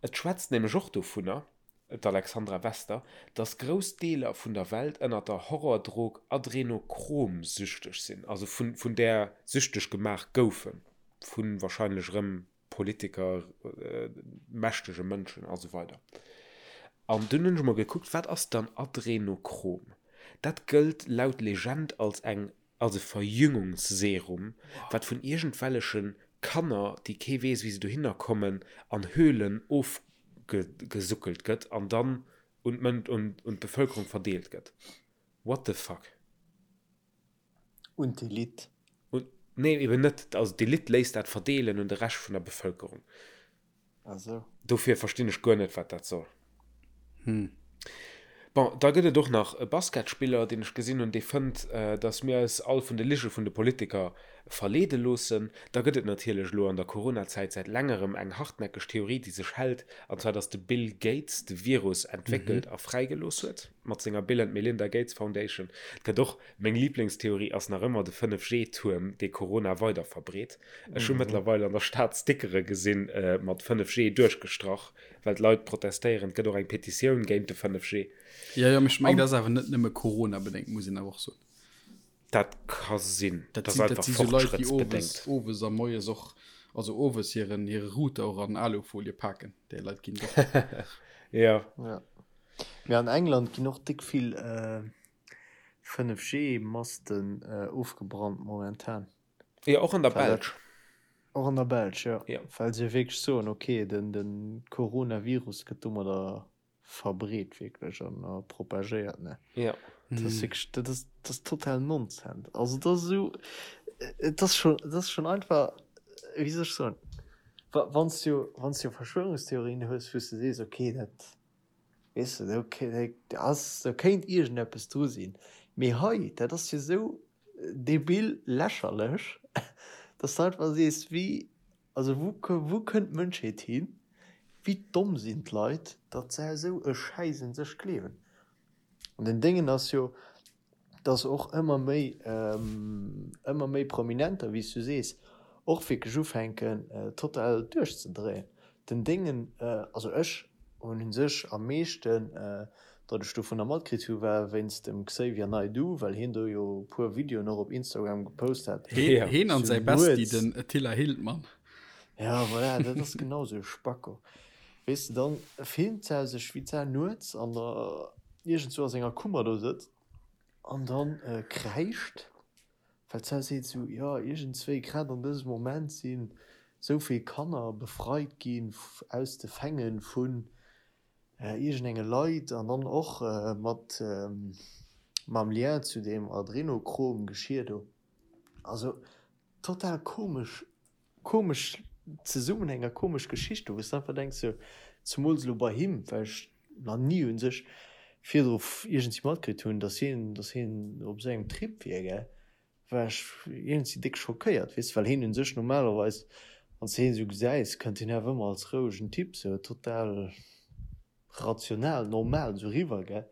et schwätzt nämlech och dovunner, d'Alexandra Wester, dass grouss Deeler vun der Welt ënner der Horrordrog Adrenochrom süchteg sinn, also vun, vun där süchteg gemaach goufen, vu wahrscheinlech erëm Politiker, mächtege Mënschen a sou weider. An dunn hunn ech emol gekuckt, wat ass dann Adrenochrom? Dat gëllt laut Legend als eng als e Verjüngungsserum, wat vun iergendwelleche Kanner, déi kee weess wéi se dohinner kommen, an Höhlen ofgesuckelt gëtt an dann un d'Mën un d'Bevëlkerung verdeelt gëtt. What the fuck? Un d'Elite. Un, nee, eben net. Also d'Elite léisst dat verdeelen un de Rescht vun der Bevëlkerung. Ah sou. Dofir verstinn ech guer net, wat dat soll. Hm. Bon, da gëtt et och nach e Basketspiller, deen ech gesinn hunn, dee fënnt, datt mir eis all vun de Lige vun de Politiker verleede loossen. Da gëtt et natierlech elo an der Coronazäit säit längerem eng hartnäckeg Theorie, déi sech hält, an zwar datt de Bill Gates de Virus entwéckelt a fräigelooss huet mat senger Bill and Melinda Gates Foundation. Et gëtt och Meng Liblingstheorie ass nach ëmmer de 5G-Tuerm, dee Corona weider verbreet. Ech hu mëttlerweil an der Stad Stickere gesinn mat 5G duerchgestrach, well d'Leit protestéieren. Et gëtt och eng Petitioun géint de 5G. Jo, jo, mee ech mengen, dat ass awer net nëmme Corona-bedéngt, muss een awer och soen. Dat ka sinn. Dat sinn, dat si sou Leit, déi owes, owes a moies och, also owes hiren, hire Router och an Alufolie paken. Déi Leit ginn et och. Jo. Jo. Mee an England ginn och déck vill 5G Masten ofgebrannt momentan. Jo, och an der Belsch. Och an der Belsch, jo. Well se wierklech soen, ok, den Coronavirus gëtt domadder verbreet wierklech an propagéiert, ne? Jo. Dat ass wierklech, dat ass, dat ass total Nonsens. Also dat ass esou, et ass schon, et ass schon einfach, wéi soll ech soen, wa wann s du, wann s du Verschwörungstheorien hues, wou s de sees, ok, dat Weess de, do ass, do kéint iergendeppes dru sinn. Mee hei, dat ass jo esou debil lächerlech, dass de einfach sees, wéi, also wou, wou kënnt d'Mënschheet hin? Wéi domm sinn d'Leit, datt se esou e Schäiss un sech gleewen? An den Déngen ass jo, dass och ëmmer méi, ëmmer méi Prominenter, wéi s du sees, och wierklech ufänken total duerchzedréien. Den Déngen, also ech hunn u sech am meeschten, datt ech dovunner matkritt hu war wéinst dem Xavier Naidoo, well hien do jo e puer Videoen och op Instagram gepost hat. Heen an säi Bestie, den Attila Hildmann. Ja, voilà, dat ass genau sou e Spacko. Weess de, dann filmt se sech wéi d'Sau nuets an der iergendzwou a senger Kummer do sëtzt an dann kräischt, well d'Sau seet esou, jo iergendzwéi grad an dësem Moment sinn esou vill Kanner befreit ginn aus de Fänge vun iergendenge Leit an dann och mat mam Lien zu deem Adrenochrom-Geschir do. Also total komesch, komesch Zesummenhäng a komesch Geschicht do, wou s de einfach denks sou, zemools elo bei him, well ech nach ni un sech virdru iergendwéi matkritt hunn, dass hien, dass hien op esou engem Trip wier, gell, war ech iergendwéi déck schockéiert, weess de, well hien un sech normalerweis, wann s de hien esou gesäis, kënnt hien awer ëmmer als rouegen Typ sou total rational, normal esou riwwer, gell?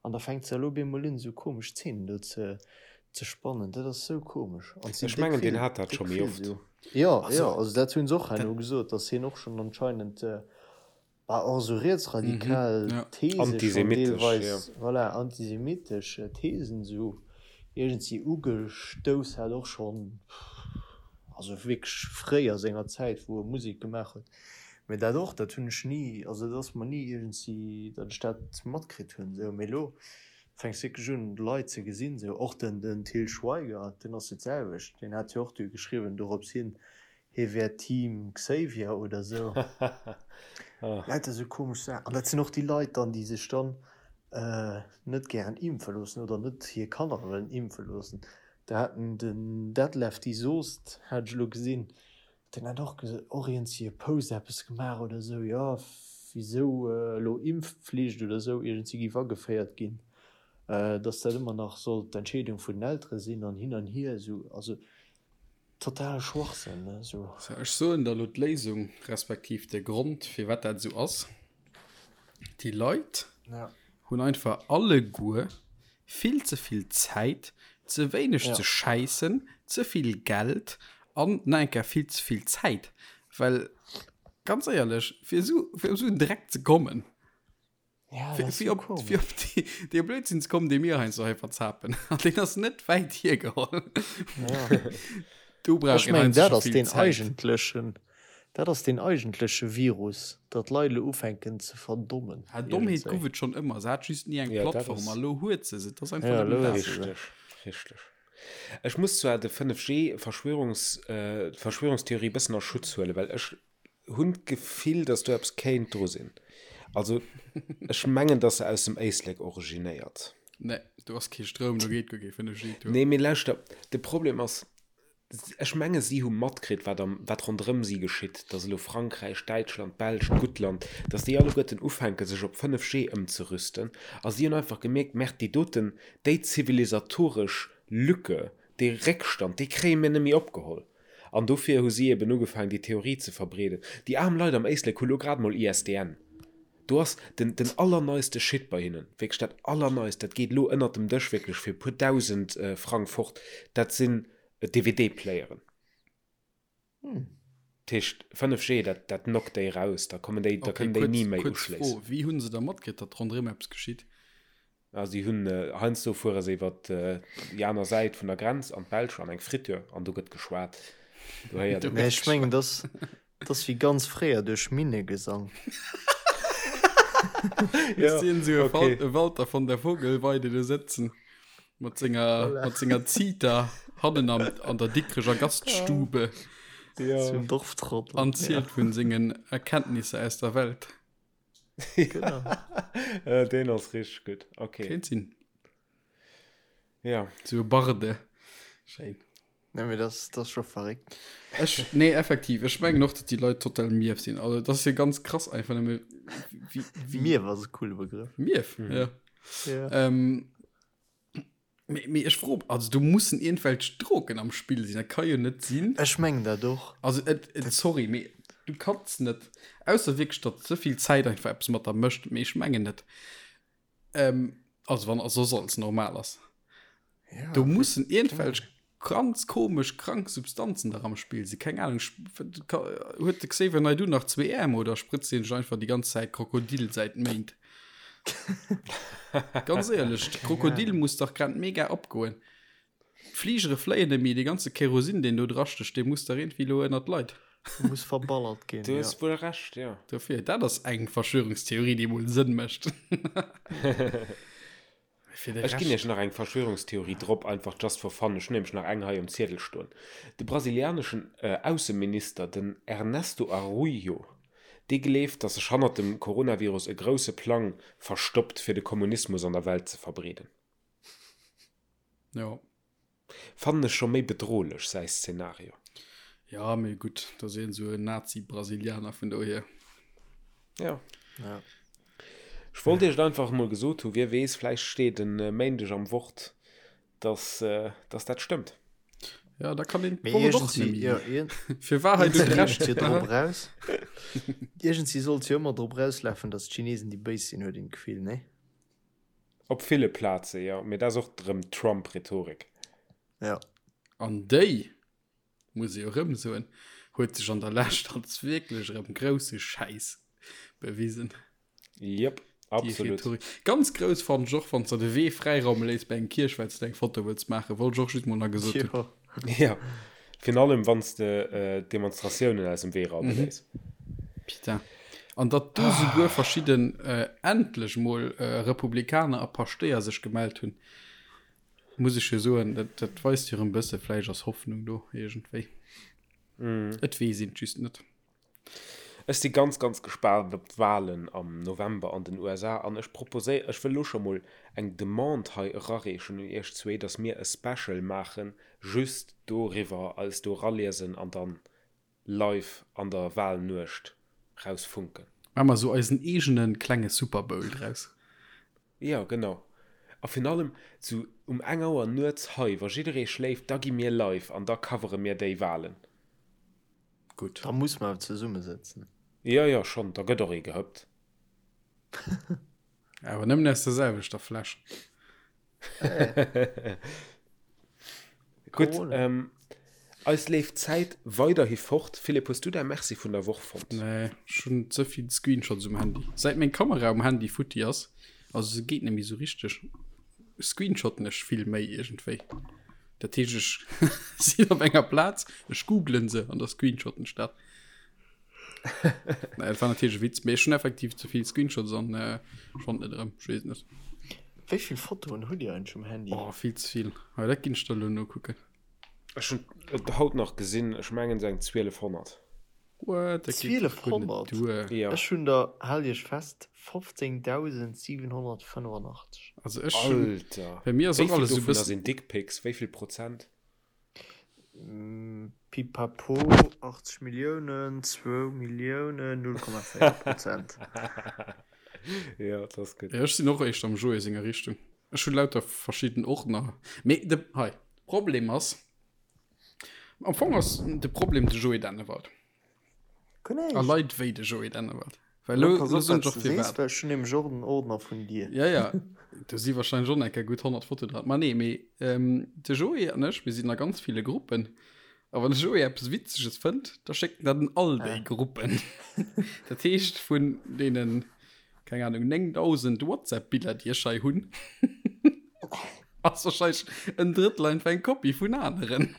An da fänkt se elo op eemol un, esou komesch Zeenen do ze, ze spannen. Dat ass esou komesch. An et sinn Ech déck mengen, deen vill, hat dat déck scho méi vill oft. esou. Jo, jo, Also, also dat hunn se och dat, herno gesot, datt hien och schonn anscheinend, bah, och esou mhm, rietsradikal ja. These schonn Antisemitesch, jo. deelweis, voilà, antisemitesch Thesen esou iergendwéi ugestouss hat, och schonn, also wierklech fréi a senger Zäit, wou e Musek gemaach huet. Mee dat och, dat hunn ech ni, also dat ass mer ni iergendwéi, datt ech dat matkritt hunn esou. Mee elo fänks wierklech un Leit ze gesinn esou, och den den Til Schweiger, deen ass jo d'selwecht, deen hat jo och du geschriwwen dorops hin, hie wär Team Xavier oder esou. Lauter esou komesch Saachen. An dat sinn och déi Leit dann, déi sech dann net gären impfe loossen oder net hir Kanner wëllen impfe loossen. Da hat den Detlef D! Soost, hat ech elo gesinn, Deen hat och och iergendwéi e Post eppes gemaach oder esou, jo, wisou elo Impfpflicht oder esou iergendwéi géif ageféiert ginn, dass dat ëmmer nach sollt d'Entscheedung vun den Eltere sinn an hin an hier esou. Also totale Schwachsënn, ne, esou. So, ech soen der elo d'Léisung, respektiv de Grond, firwat dat esou ass. Déi Leit hunn einfach alleguer vill ze vill Zäit, ze wéineg ze schäissen, ze vill Geld an nach eng Kéier vill ze vill Zäit. Well ganz éierlech, fir esou, fir op esou en Dreck ze kommen, fir, fir op, fir op dee, dee Blödsinn ze kommen, dee mir heiansdo hei verzapen, an deen ass net wäit hiergeholl. Do brauch Ech een mengen, heiansdo dat scho ass vill deen Zäit. eigentlechen, dat ass deen eigentleche Virus, datt d'Leit elo ufänken ze verdommen Ah, Dommheet iergendzwéi. guff et schonn ëmmer, se hat just ni eng Ja, dat Plattform ass. a lo huet se se. Et ass einfach Ja, nëmmen elo dat. huet se se. Richteg, richteg. Ech muss zwar de 5G-Verschwörungs, äh, d'Verschwörungstheorie bëssen a Schutz huelen, well ech hunn d'Gefill, datt do eppes kéint dru sinn. Also, ech mengen, datt se aus dem Éislek originéiert. Nee, do ass kee Stroum, do geet guer kee 5G duer. Nee, mee lauschter, de Problem ass, ech menge si hu matkritt, wat am, wat ronderëm si geschitt, datt elo Frankräich, Däitschland, d'Belsch, d'Guttland, datt déi alleguerten ufänke sech op 5G ëmzerüsten a si hunn einfach gemierkt, Merde, déi doten, déi zivilisatoresch Lücke, dee Réckstand, dee kréie mir net méi opgeholl. An dofir hu si eben ugefaangen, déi Theorie ze verbreeden. Déi aarm Leit am Éislek hu lo grad mol ISDN. Do ass den, den allerneiste Shit bei hinnen, wierklech dat Allerneist, dat geet elo ënnert dem Dësch wierklech fir e puer 1.000 Frang fort, dat sinn DVD-Playeren. Dat heescht, 5G, dat, dat knockt déi raus, da kommen déi, da Okay, kënnen déi kuerz, ni méi kuerz Fro, uschléissen. Wéi hu se da matkritt, datt ronderëm eppes geschitt? Ah, si hunn, heiansdo fuere se iwwer déi aner Säit vun der Grenz an d'Belsch an eng Friture an do gëtt geschwat. Do héiert een. Nee, ech mengen, dass dass wéi ganz fréier duerch Minnegesang. Ech sinn esou e okay. e Walter von der Vogelweide do sëtzen mat senger, mat senger Zita hannen am, an der Dikrecher Gaststube Ja. Zum Dorftrottel. an zielt vun sengen Erkenntnisser aus der Welt. Genau. Äh, deen ass richteg gutt. Okay. Kéint sinn. Ja. Sou e Barde. Schéin. Nee, mee das, das ass scho verréckt. Ech, nee, effektiv. Ech mengen och, datt déi Leit total mierf sinn. Also, dat ass jo ganz krass einfach nëmme wéi, wéi. Mierf ass e coole Begrëff. Mierf, ja. Ja. Ähm, Mee, mee ech fro, also do mussen iergendwelch Drogen am Spill sinn, dat ka jo net sinn. Ech mengen dat och. Also et, et, sorry, mee du kanns net, ausser wierklech, datt ze vill Zäit einfach eppes mat der mécht, mee ech mengen net. Ähm, also wann soss alles normal ass. Ja, Do mussen iergendwelch ganz komesch krank Substanzen der am Spill sinn. Keng Ahnung, huet de Xavier Naidoo nach zwee Äerm oder spritzt hien sech einfach déi ganz Zäit Krokodil säit Méint? Ganz éierlech, de Krokodil muss dach grad mega opgoen. D'Fligere fléien net méi, dee ganze Kerosin, deen do drastécht, dee muss dach iergendwéi elo ënnert d'Leit. Muss verballert ginn, Du hues wuel Recht, jo. Dofir, dat ass eng Verschwörungstheorie, déi mol Sënn mécht. Fir de Ech ginn Iech nach eng Verschwörungstheorie drop, einfach just for fun. Ech hunn nämlech nach eng hei um Ziedel stoen. De brasilianeschen Ausseminister, den Ernesto Araújo, dee gleeft, datt sech hannert dem Coronavirus e grousse Plang verstoppt, fir de Kommunismus an der Welt ze verbreeden. Jo. Fannen ech scho méi bedrohlech, säi Szenario. Ja, mee gutt, dat ass een esou en Nazi-Brasilianer, vun dohier. Ja. Ja. Ech wollt iech et einfach emol gesot hu, wie weess, vläicht steet en Méindeg am Wort, dass, dass dat stëmmt. Ja, da kann een Mee d'Wort och iergendwéi, nemmi. ja, iergend, Fir Wahrheit und iergendwéi Recht. leeft jo drop raus. Iergendwéi sollt jo ëmmer drop rauslafen, dass d'Chinesen déi Béis sinn, huet een d'Gefill, nee? Op ville Plaze, jo. Mee dat ass och erëm Trump-Rhetorik. Ja. An déi, muss ee jo erëm soen, huet sech an der Lescht als wierklech erëm grousse Schäiss bewisen. Jep, absolut. Rhetorik. Ganz grouss fannen ech och, wann s de de Wee fräiraume léiss bei eng Kierch, well s de eng Foto wëlls maachen. Wollt ech och just mol nach gesot hunn. Jo. Jo, virun allem wann s de Demonstratiounen aus dem Wee raume léiss. Putain. An datt do souguer verschidden, endlech mol, Republikaner a Paschtéier sech gemellt hunn, muss ech jo soen, dat, dat weist jo erëm e bësse, vläicht ass Hoffnung do iergendwéi. Et weess een et just net. Ech si ganz, ganz gespaant op d'Walen am November an den USA an ech proposéi, ech wëll elo scho mol eng Demande hei erareechen un iech zwee, datt mir e Special maachen just doriwwer, eis do eraliesen an dann live an der Walnuecht rausfunken. Maache mer esou eisen eegene klenge Super Bowl draus. Jo, genau. A virun allem sou um eng Auer nuets hei, wa jidderee schléift, da gi mir live an da covere mir déi Walen. Gutt. Da muss mer awer zesummesëtzen. Jo, jo, schonn, da gëtt och ee gehëppt. Awer nëmmen aus der selwechter Fläsch. Gutt, eis leeft d'Zäit weiderhi fort. Philippe, hues du däi Merci vun der Woch fonnt? Nee, ech hunn ze vill Screenshots um Handy. Säit meng Kamera um Handy futti ass, also se geet net méi sou richteg, screenshotten ech vill méi iergendwéi. Dat heescht, ech sinn op enger Plaz, ech googlen se an da screenshotten ech dat. Naja, dat war natierlech e Witz, mee ech hunn effektiv ze vill Screenshots an äh, ech fand net erëm, ech weess et net. Wéi vill Fotoen hutt Dir eigentlech um Handy? Oh, vill ze vill. Hei, dat ginn ech der elo nokucken. Ech hunn et haut nach gesinn, ech mengen esou eng 1200. What? Dat geet dach guer net 1200? duer. Jo. Ech hunn der, haalt Iech fest, 15.785. Also ech hunn, Alter! bei mir ass Wéi och vill alles esou dovunner bëssen. sinn Dickpics? Wéi vill Prozent? Pipapo, 80 Milliounen, zwou Milliounen, 0,4 Prozent. Jo, dat ass gutt. Jo, ech sinn och éischter am Joé senger Richtung. Ech hunn lauter verschidden Ordner. Mee de, hei, Problem ass, am Fong ass de Problem de Joé Dennewald. A Leit wéi de Joé Dennewald. Well lo, Pass lo op, soen wat ech och s de sees, firwat. well ech hunn nämlech och en Ordner vun dir. Ja, ja, do si wahrscheinlech och nach eng Kéier gutt 100 Fotoen dran. Ma nee, mee ähm, de Joé an ech, mir sinn a ganz ville Gruppen. A wann de Joé eppes Witzeges fënnt, da schéckt en dat an all déi Ah. Gruppen. Dat heescht, vun deenen, keng Ahnung, 9000 WhatsApp-Biller, déi ech hei hunn, ass wahrscheinlech en Drëttel einfach eng Kopie vun aneren.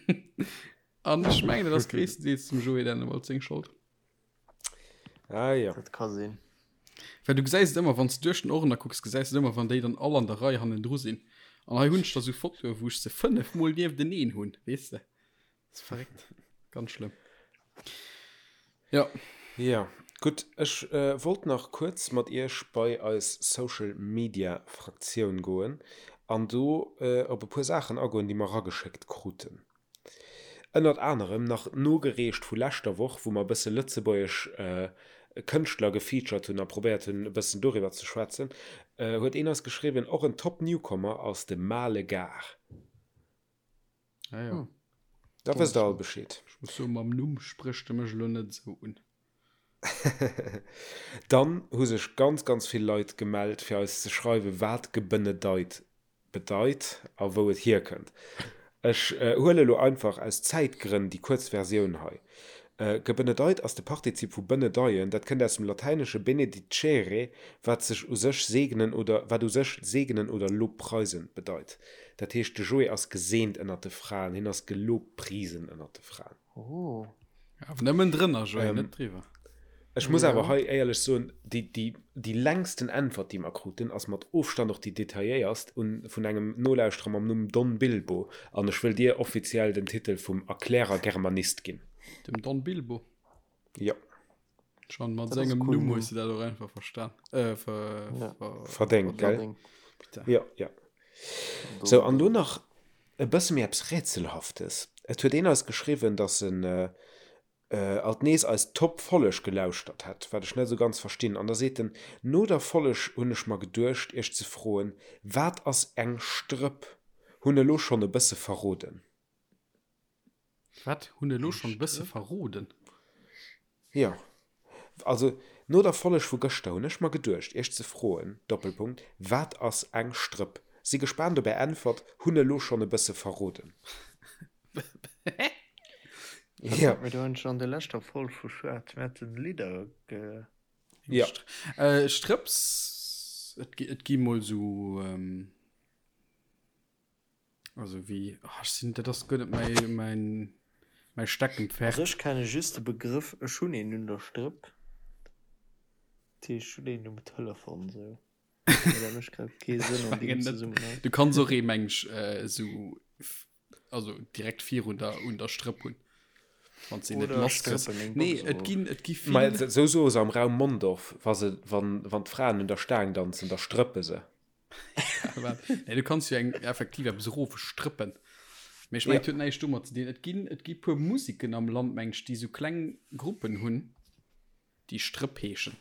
An ech mengen, dat ass gréisstendeels dem Joé Dennewald seng Schold. Ah ja. Dat ka sinn. Well du gesäis et ëmmer, wann s du duerch den Ordner kucks, gesäis du et ëmmer, wann déi dann all an der Rei hannendru sinn. An hei hunn ech da sou Fotoe, wou ech se 5 mol niefteneen hunn, weess de. Dat ass verréckt. Ganz schlëmm. Ja. Ja, gutt. Ech wollt nach kuerz mat iech bei eis Social Media Fraktioun goen an do op e puer Saachen agoen, déi mer erageschéckt kruten. Ënnert anerem nach nogereecht vu leschter Woch, wou mer e bësse lëtzebuergesch Kënschtler gefeatured hunn a probéiert hunn e bëssen doriwwer ze schwätzen, huet een eis geschriwwen, och en top Newcomer ass de Male Gars. Ah jo. Da wësst der all Bescheed. Ech muss soen, mam Numm sprécht e mech elo net esou un. Dann hu sech ganz, ganz vill Leit gemellt, fir eis ze schreiwen, wat gebenedeit bedeit a wou et hierkënnt. Ech huele lo einfach aus Zäitgrënn déi kuerz Versioun hei. Gebenedeit ass de Partizip vu benedeien, dat kënnt aus dem Latäinesche benedicere, wat sech u sech segnen oder wat u sech segnen oder lobpreisen bedeit. Dat heescht, de Joé ass geseent ënnert de Fraen, hien ass gelobprisen ënnert de Fraen. Oh. Awer nëmmen drënner, Joé, net driwwer. Ech muss awer hei éierlech soen, déi, déi, déi längsten Äntwert, déi mer kruten, ass mat Ofstand och déi detailléierst, un, vun engem Nolauschterer mam Numm Don Bilbo. An ech wëll dir offiziell den Titel vum Erklärer Germanist ginn. Dem Don Bilbo? Jo. Schon mat sengem Numm hues de dat och einfach verstan, äh, ver, ja. ver, verdéngt, gell? Bitte. Jo, jo. Sou, an lo nach e bësse méi eppes Rätselhaftes. Et huet een eis geschriwwen, dass en, alt nees eis Top Folleg gelauschtert hätt, wat ech net esou ganz verstinn, an da seet en, No der Folleg hunn ech mer geduecht iech ze froen, wat ass eng Strëpp? Hunn elo schonn e bësse verroden. Wat? Hunn elo schonn e bësse verroden? Jo, also no der Folleg vu gëschter hunn ech mer geduecht iech ze froen, Doppelpunkt, wat ass eng Strëpp? Si gespaant op är Äntwert, hunn elo schonn e bësse verroden. Hä? Ja. Mir hunn schon an der leschter Folg vu Schwaarz Metten Lidder ge. Ja. Äh, Strëpps, et, et gi mol so, ähm, also wéi, oh, ech sinn, dat ass guer net mäi, mäin, mäi Steckenpferd. Also ech kenne just de Begrëff ech hunn een un der Strëpp, dat heescht ech hunn een um Telefon sou. Mee dat mécht grad kee Sënn an deem Zesummenhang. Du kanns och ee meng ech esou also direkt virun der un der Strëpp hunn. Wann se net lass kriss. Nee, et ginn et gi vill. Ma esou soe se am Raum Mondorf, wa se wann wann d'Fraen un der Staang danzen, da strëppe se. Nee, du kanns jo eng effektiv eppes erofstrëppen. Mee ech mengen, et huet näischt domat ze dinn. Et ginn et gi puer Musiken am Land, meng ech, déi esou kleng Gruppen hunn. Déi Strëpp heeschen.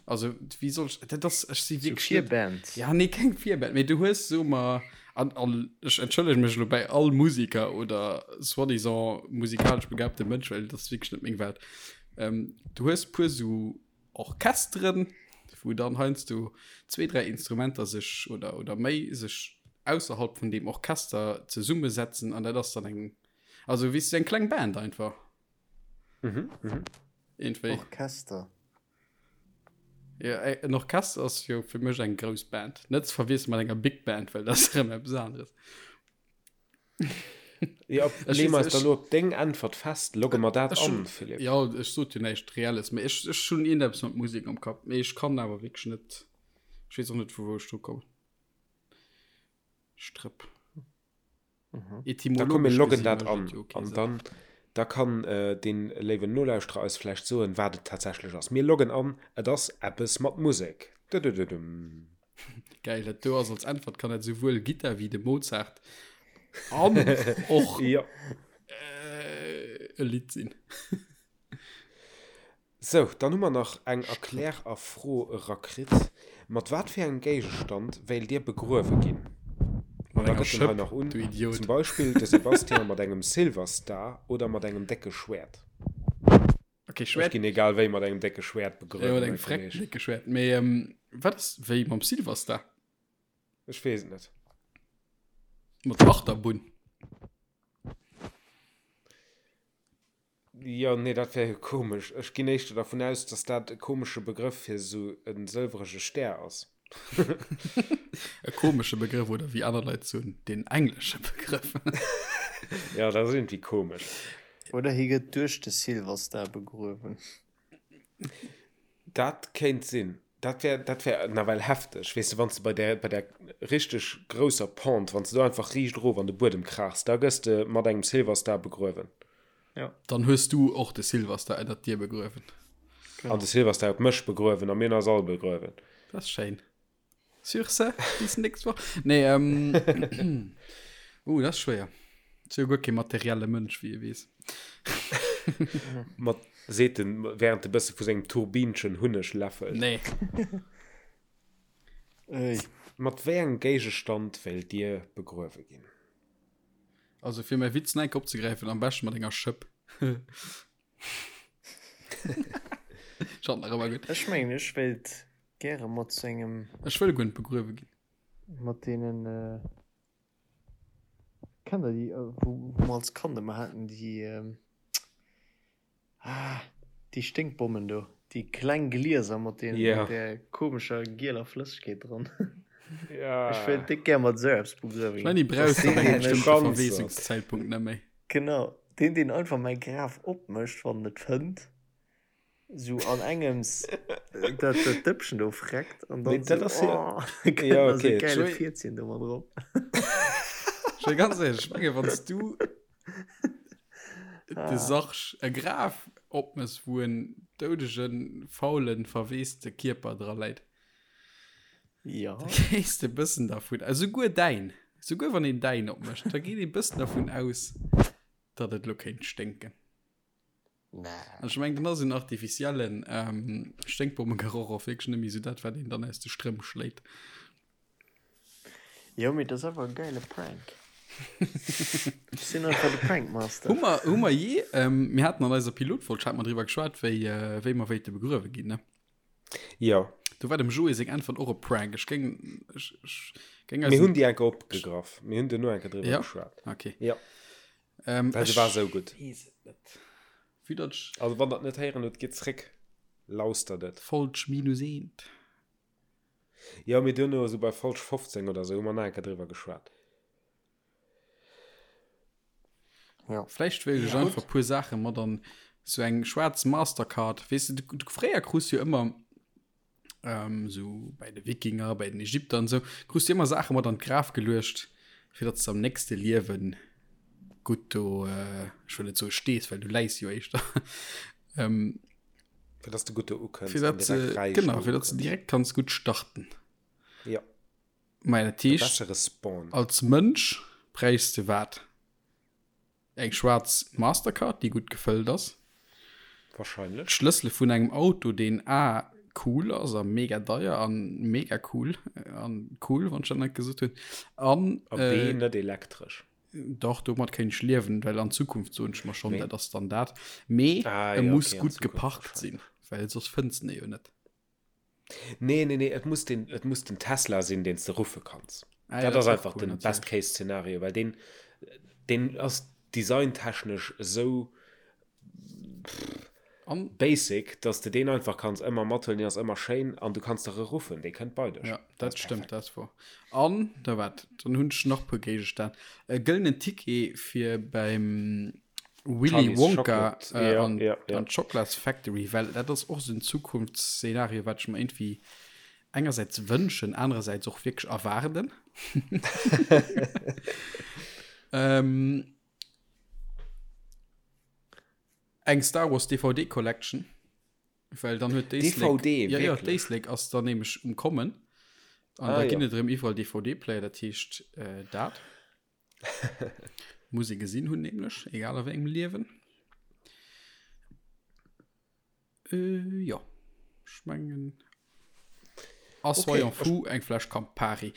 Also wéi soll ech, dat ass, ech si wierklech net. Virband. Ja, nee, keng Virband, mee du hues, soe mer, an, an ech entschëllege mech elo bäi all Musiker oder soi-disant musikalesch begabte Mënsch, well dat ass wierklech net meng Welt. Ähm, du hues puer sou Orchesteren, wou dann heiansdo zwee, dräi Instrumenter sech oder, oder méi sech ausserhalb vun deem Orchester zesummesetzen an dat ass dann eng, also weess du, eng kleng Band einfach. Mhm, mhm. Irgendwie. Orchester. Ja, en Orchester ass jo fir mech eng grouss Band. Net ze verwiessele mat enger Big Band, well dat ass erëm eppes aneres. Ja, lee mer eis da lo op deng Äntwert fest. Logge mer dat an, Philippe? Ja, ech sot jo näischt Reelles, mee ech, ech hunn iergendeppes mat Musek am Kapp, mee ech kann awer wierklech net, ech weess och net, vu wou ech dru kommen. Strëpp. Da komm mir loggen dat an an dann da kann dee léiwen Nolauschterer eis vläicht soen, wat et tatsächlech ass. Mir loggen an, et ass eppes mat Musek. Dëdëdëdëm. Geil, dat do ass als Äntwert kann dat souwuel Gittar wéi de Mozart an och Jo. e Lidd sinn. Sou, dann hu mer nach eng Erklär a Fro erakritt. Mat wat fir engem Géigestand wéilt Dir begruewe ginn? An da gëtt en hei nach un, zum Beispill de Sébastien mat engem Silverstar oder mat engem décke Schwäert. Okay, Schwäert. Ech ginn egal wéi mat engem décke Schwäert begruewen. Jo, mat engem frecken décke Schwäert. Mee wat ass wéi mam Silverstar? Ech weess et net. Mat der Achterbunn. Jo, nee, dat wär jo komesch. Ech ginn éischter dervun aus, dass dat e komesche Begrëff fir esou e sëlwerege Stär ass. E komesche Begrëff, oder wéi aner Leit soen, den englesche Begrëff. Jo, dat ass iergendwéi komesch. Oder hie gëtt duerch de Silverstar begruewen. Dat kéint sinn. Dat wär, dat wär nawell hefteg, weess de, wann s de bei där, bei där richteg grousser Pente, wann s de do einfach riicht erof an de Buedem kraachs, da gëss de mat engem Silverstar begruewen. Ja. Dann hues du och de Silverstar ënnert dir begruewen. Genau. An de Silverstar huet mech begruewen a mir hunn eis all begruewen. Dat ass schéin. Sur ce, bis nächst Woch. Nee, ähm, uh, dat ass schwéier. Ech si jo guer kee materielle Mënsch, wéi ee weess. Mat, seet en, während e bësse vu sengem Turbinchen Hunneg läffelt. Nee. Ey. Mat wéi engem Géigestand wéilt Dir begruewe ginn? Also fir mäi Witz nach eng Kéier opzegräifen, am beschte mat enger Schëpp. Schaut nach ëmmer gutt. Ech mengen ech wéilt gäre mat sou engem. Ech wëll guer net begruewe ginn. Mat deenen, kennt der déi wou mer als Kand ëmmer haten, déi, ah déi Sténkbommen do, déi kleng Glieser mat deenen, mat där komescher gieler Flëssegkeet dran. Ech wéilt déck gär mat esou eppes begruewe ginn. Ech mengen déi brauchs de ab engem bestëmmte Verweesungszäitpunkt net méi. Genau. Deen, deen einfach mäi Graf opmécht, wann en et fënnt, sou an engems dat dat Dëppchen do freckt an dann dat ass sou, jo oh, da kënnt ja nach sou okay gäile Joé, Fierzchen do mat drop. Joé, ganz éierlech, ech menge wann s du de Ah. Sarg e Graf opmëss, wou en doudegen, faulen, verweeste Kierper dra läit, Ja. da gees de e bëssen dervun, esouguer däin, esouguer wann een däin opmécht, da geet ee bëssen dervun aus, datt et elo kéint sténken. Nee. An ech mengen, dann ass en artificiellen ähm, Sténkbommegeroch och wierklech net méi esou dat, wat een dann aus de Strëmp schléit. Jo, mee dat ass awer e geile Prank. Ech sinn einfach de Prankmaster. Hu mer, hu mer je, ähm, mir haten an eiser Pilotfolg, hat mer driwwer geschwat, wéi, äh, wéi mer wéilte begruewe ginn, ne? Jo. Do war dem Joé seng Äntwert och e Prank. Ech géing, ech, ech géing Mir eisen. hunn déi enke opgegraff. Mir hunn duerno enke driwwer Ja? geschwat. Okay. Jo. Ähm, Well se war esou gutt. Weess et net. Vue datt ech. Also wann der et net héieren hutt, gitt zréck, lauschtert et. Folg minus eent. Jo, mee duerno, esou bei Folg 15 oder esou, hu mer nach eng Kéier driwwer geschwat. Ja. Vläicht wéilt ech Ja, einfach gutt. puer Saache mat an sou eng schwaarz Mastercard. Weess de, du, fréier krus jo ëmmer ähm, sou bei de Wikinger, bei den Ägypter an sou, krus du ëmmer Saache mat an d'Graf geluecht, fir datt s de am nächste Liewen gutt do, äh, ech wëll net soe stees, well du läis jo éischter. ähm, Fir datt s de gutt do ukënns fir an datt direkt se, räich genau, do fir datt s de ukënns. direkt kanns gutt starten. Ja. Mä dat De heescht, bessere Spawn. als Mënsch bräichs de wat? Eng schwaarz Mastercard, déi gutt gefëllt ass. Wahrscheinlech. D'Schlëssele vun engem Auto, deen A cool ass a mega deier an mega cool an cool, wann ech dat net gesot hunn. An A B net elektresch. Dach, domat kéint ech liewen, well an Zukunft soen ech mer schonn, Mee dat ass dann dat. Mee Ah e jo, muss okay, an gutt Zukunft geparkt sinn, wahrscheinlech. well soss fënns de e jo net. Nee, nee, nee, et muss den, et muss den Tesla sinn, deen s de ruffe kanns. Ah, ja, Dat dat ass ass och einfach cool, den natierlech. Best-Case-Szenario, well deen, deen ass designtechnesch esou An basic, dass de deen einfach kanns ëmmer mathuelen, deen ass ëmmer schéin an du kanns der e ruffen, dee kënnt bei dech. Ja, Dat dat ass stëmmt, perfekt. dat ass wor. An da wat, dann hunn ech nach puer Géigestänn. E gëllenen Ticket fir beim Willy Charlie's Wonka Chocolate, äh, ja, an, ja, ja. an d'Chocolates Factory, well dat ass och sou en Zukunftsszenario, wat ech mer irgendwie engersäits wënschen, anerersäits och wierklech erwaarden. ähm, eng Star Wars DVD Collection, well dann huet d'Éislek, DVD, ja, ja, wierklech? d'Éislek ass dann nämlech um Kommen. An Ah, da ginn ja. et erëm iwwerall DVD-Player, dat heescht äh, dat. Muss ee gesinn hunn, nämlech, egal a wéi engem Liewen. Äh, jo, ech mengen. A Okay, soyons ech, fous, eng Fläsch Campari.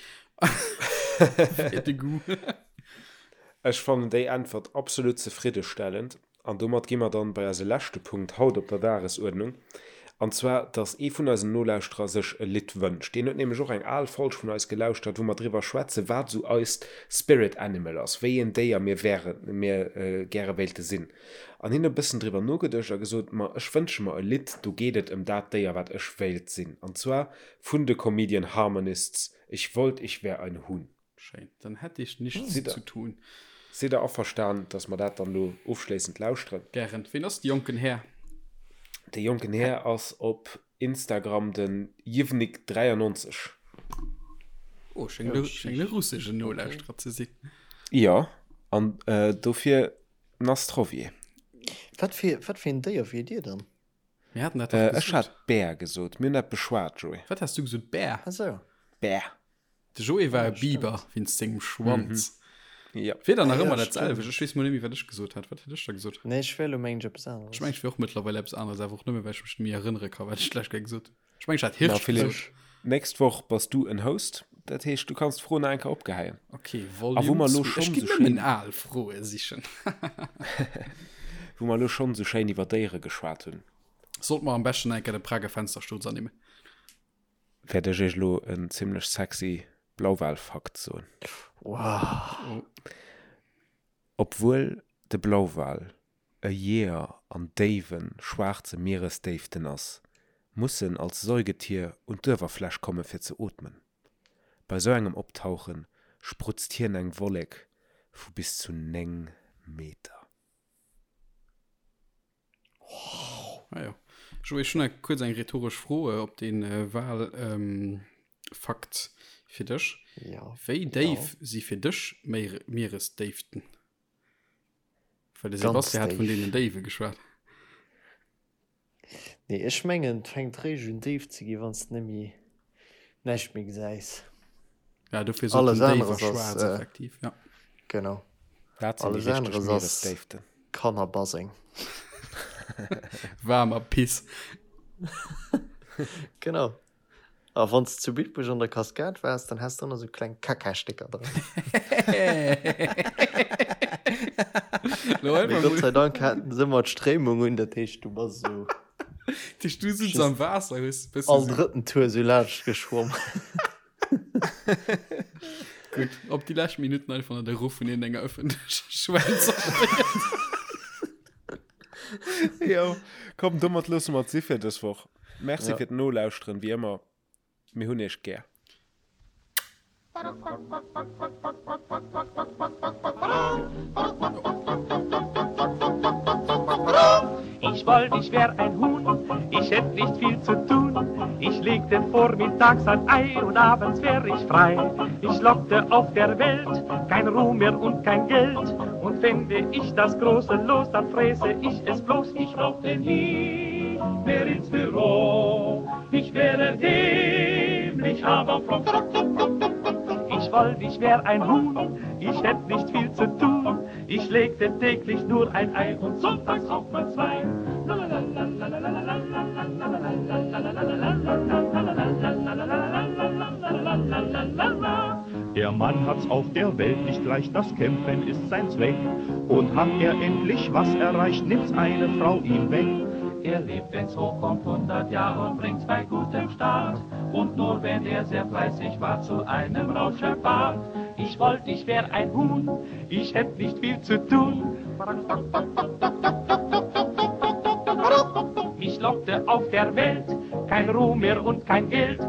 Fir de Goût. ech fannen déi Äntwert absolut zefriddestellend. An domat gi mer dann bei eise leschte Punkt haut op der Dagesuerdnung, an zwar, dass ee vun eisen Nolauschterer sech e Lidd wënscht. Deen huet nämlech och eng al Folg vun eis gelauschtert, wou mer driwwer schwätzen, wat esou eist Spirit Animal ass, wéi een Déier mir wären, mir gäre wéilte sinn. An hien huet e bëssen driwwer nogeduecht a gesot, Ma ech wënsche mer e Lidd, do geet et ëm dat Déier, wat ech wéilt sinn. An zwar vun de Comedian Harmonists, Ich wollt, ich wär ein Huhn. Schéin, dann hätt ich nichts Sidd der, zu tun. sidd der averstan, dass mer dat dann elo ofschléissend lauschteren? Gären. Ween ass de jonken Här? De jonken Här ass op Instagram den Jivnik93. Oh, schéngt e, schéngt e russeschen Nolauschterer ze sinn. Jo, an dofir Nastrovje. Wat fir, wat fir een Déier wier Dir dann? Mir haten dat dach Ech gesot. hat Bär gesot. Mir hunn dat beschwat, Joé. Wat has du gesot? Bär? Ah sou. Bär. De Joé war Ah, e Biber stimmt. wéinst sengem Schwanz. Ja. Wier dann Ah, nach ja, ëmmer dat stimmt. selwecht. Ech weess mol net méi, wat ech gesot hat. Wat hat ech da gesot? Nee, ech wär elo mengen ech eppes Ech aneres. mengen, ech wier och mëttlerweil eppes aneres, awer och nëmme, well ech mech net méi erënnere ka, wat ech d'lescht Kéier gesot hunn. Ech mengen, ech hat Ma Hirsch Philipp, gesot. nächst Woch bass du en Host. Dat heescht, du kanns d'Fro nach eng Kéier opgeheien. Okay, A wou Volume mer elo 2. Ech schonn ginn esou nëmmen schéin, al Froe sichen. wou mer elo schonn esou schéin iwwer Déiere geschwat hunn, Sollt mer am beschten eng Kéier de Prager Fenstersturz ernimmen. wäert ech iech elo en zimlech sexy Blauwal-Fakt soen. Wow. Obwuel de Blauwal e Jeeër an déiwen, schwaarze Mieresdéiften ass, muss en als Säugetier un d'Uewerfläch komme fir ze ootmen. Bei sou engem Optauche sprutzt hien eng Wollek vu bis zu 9 Meter. Ah, jo. Joé, ech hunn nach kuerz eng rhetoresch Fro op dee Wal ähm, Fakt fir dech. Ja. Wéi déif ja. si fir dech Mieresdéiften? Well de Ganz Sebastian hat vun déif. deenen Déiwe geschwat. Nee, ech mengen, et fänkt réischt un déif ze ginn, wann s de net méi, näischt méi gesäis. Ja, dofir sot Alles den Déif a aneres ass, schwaarz äh, effektiv, ja. Genau. Dat sinn déi Alles richteg aneres ass Mieresdéiften. Kannerbaseng. Waarmer Piss. Genau. A wann s de zu Bitburg an der Kaskad waars, dann häss de ëmmer sou kleng Kacka-Stécker dran. Lo Mee einfach Gott mol. sei Dank haten se ëmmer d'Stréimung un, dat heescht, du bass esou Dat heescht, du sitz just am Waasser, hues e bësse all sou. drëtten Tour sou laanscht geschwomm. Gutt, op déi lescht Minutten einfach nach de Ruff vun iergendenger ëffentlecher Schwell zerstéiert. Jo, komm, domat loosse mer et si fir dës Woch. Merci Ja. fir d'Nolauschteren, wéi ëmmer. Mir hunn iech gär. Ich wollt, ich wär ein Huhn, ich hätt nicht viel zu tun. Ich legte vormittags ein Ei und abends wär ich frei. Ich lockte auf der Welt kein Ruhm mehr und kein Geld. Und fände ich das große Los, dann fräße ich es bloß. Ich brauchte nie mehr ins Büro. Ich wäre dämlich, aber froh. Ich wollt, ich wär ein Huhn, ich hätt nicht viel zu tun. Ich legte täglich nur ein Ei und sonntags auch mal zwei. Der Mann hat's auf der Welt nicht leicht, das Kämpfen ist sein Zweck. Und hat er endlich was erreicht, nimmt's eine Frau ihm weg. Er lebt, wenn's hochkommt, 100 Jahre und bringt's bei gutem Start. Und nur wenn er sehr fleißig war zu einem Rauschebart. Ich wollt, ich wär ein Huhn, ich hätt nicht viel zu tun. Mich lockte auf der Welt kein Ruhm mehr und kein Geld.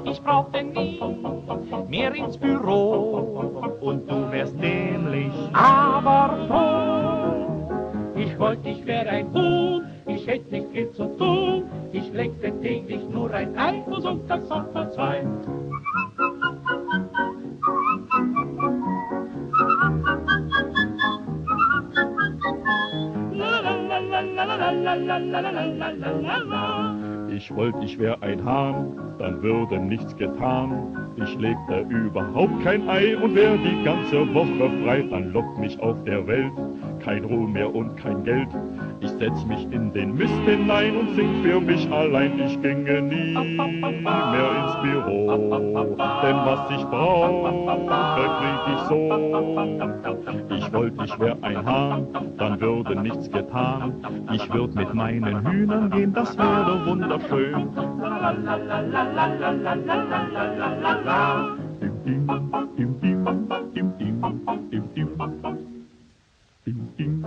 Ich brauchte nie mehr ins Büro. Und du wärst dämlich, aber froh. Ich wollt, ich wär ein Huhn, ich hätt nicht viel zu tun. Ich legte täglich nur ein Ei und sonntags auch mal zwei. Ich wollt, ich wär ein Hahn, dann würde nichts getan. Ich legte überhaupt kein Ei und wär die ganze Woche frei. Dann lockt mich auf der Welt kein Ruhm mehr und kein Geld. Ich setz mich in den Mist hinein und sing für mich allein. Ich ginge nie mehr ins Büro, denn was ich brauche, krieg ich so. Ich wollt, ich wär ein Hahn, dann würde nichts getan. Ich würd mit meinen Hühnern gehen, das wäre wunderschön. Dim, dim, dim, dim, dim, dim, dim, dim. Dim, dim.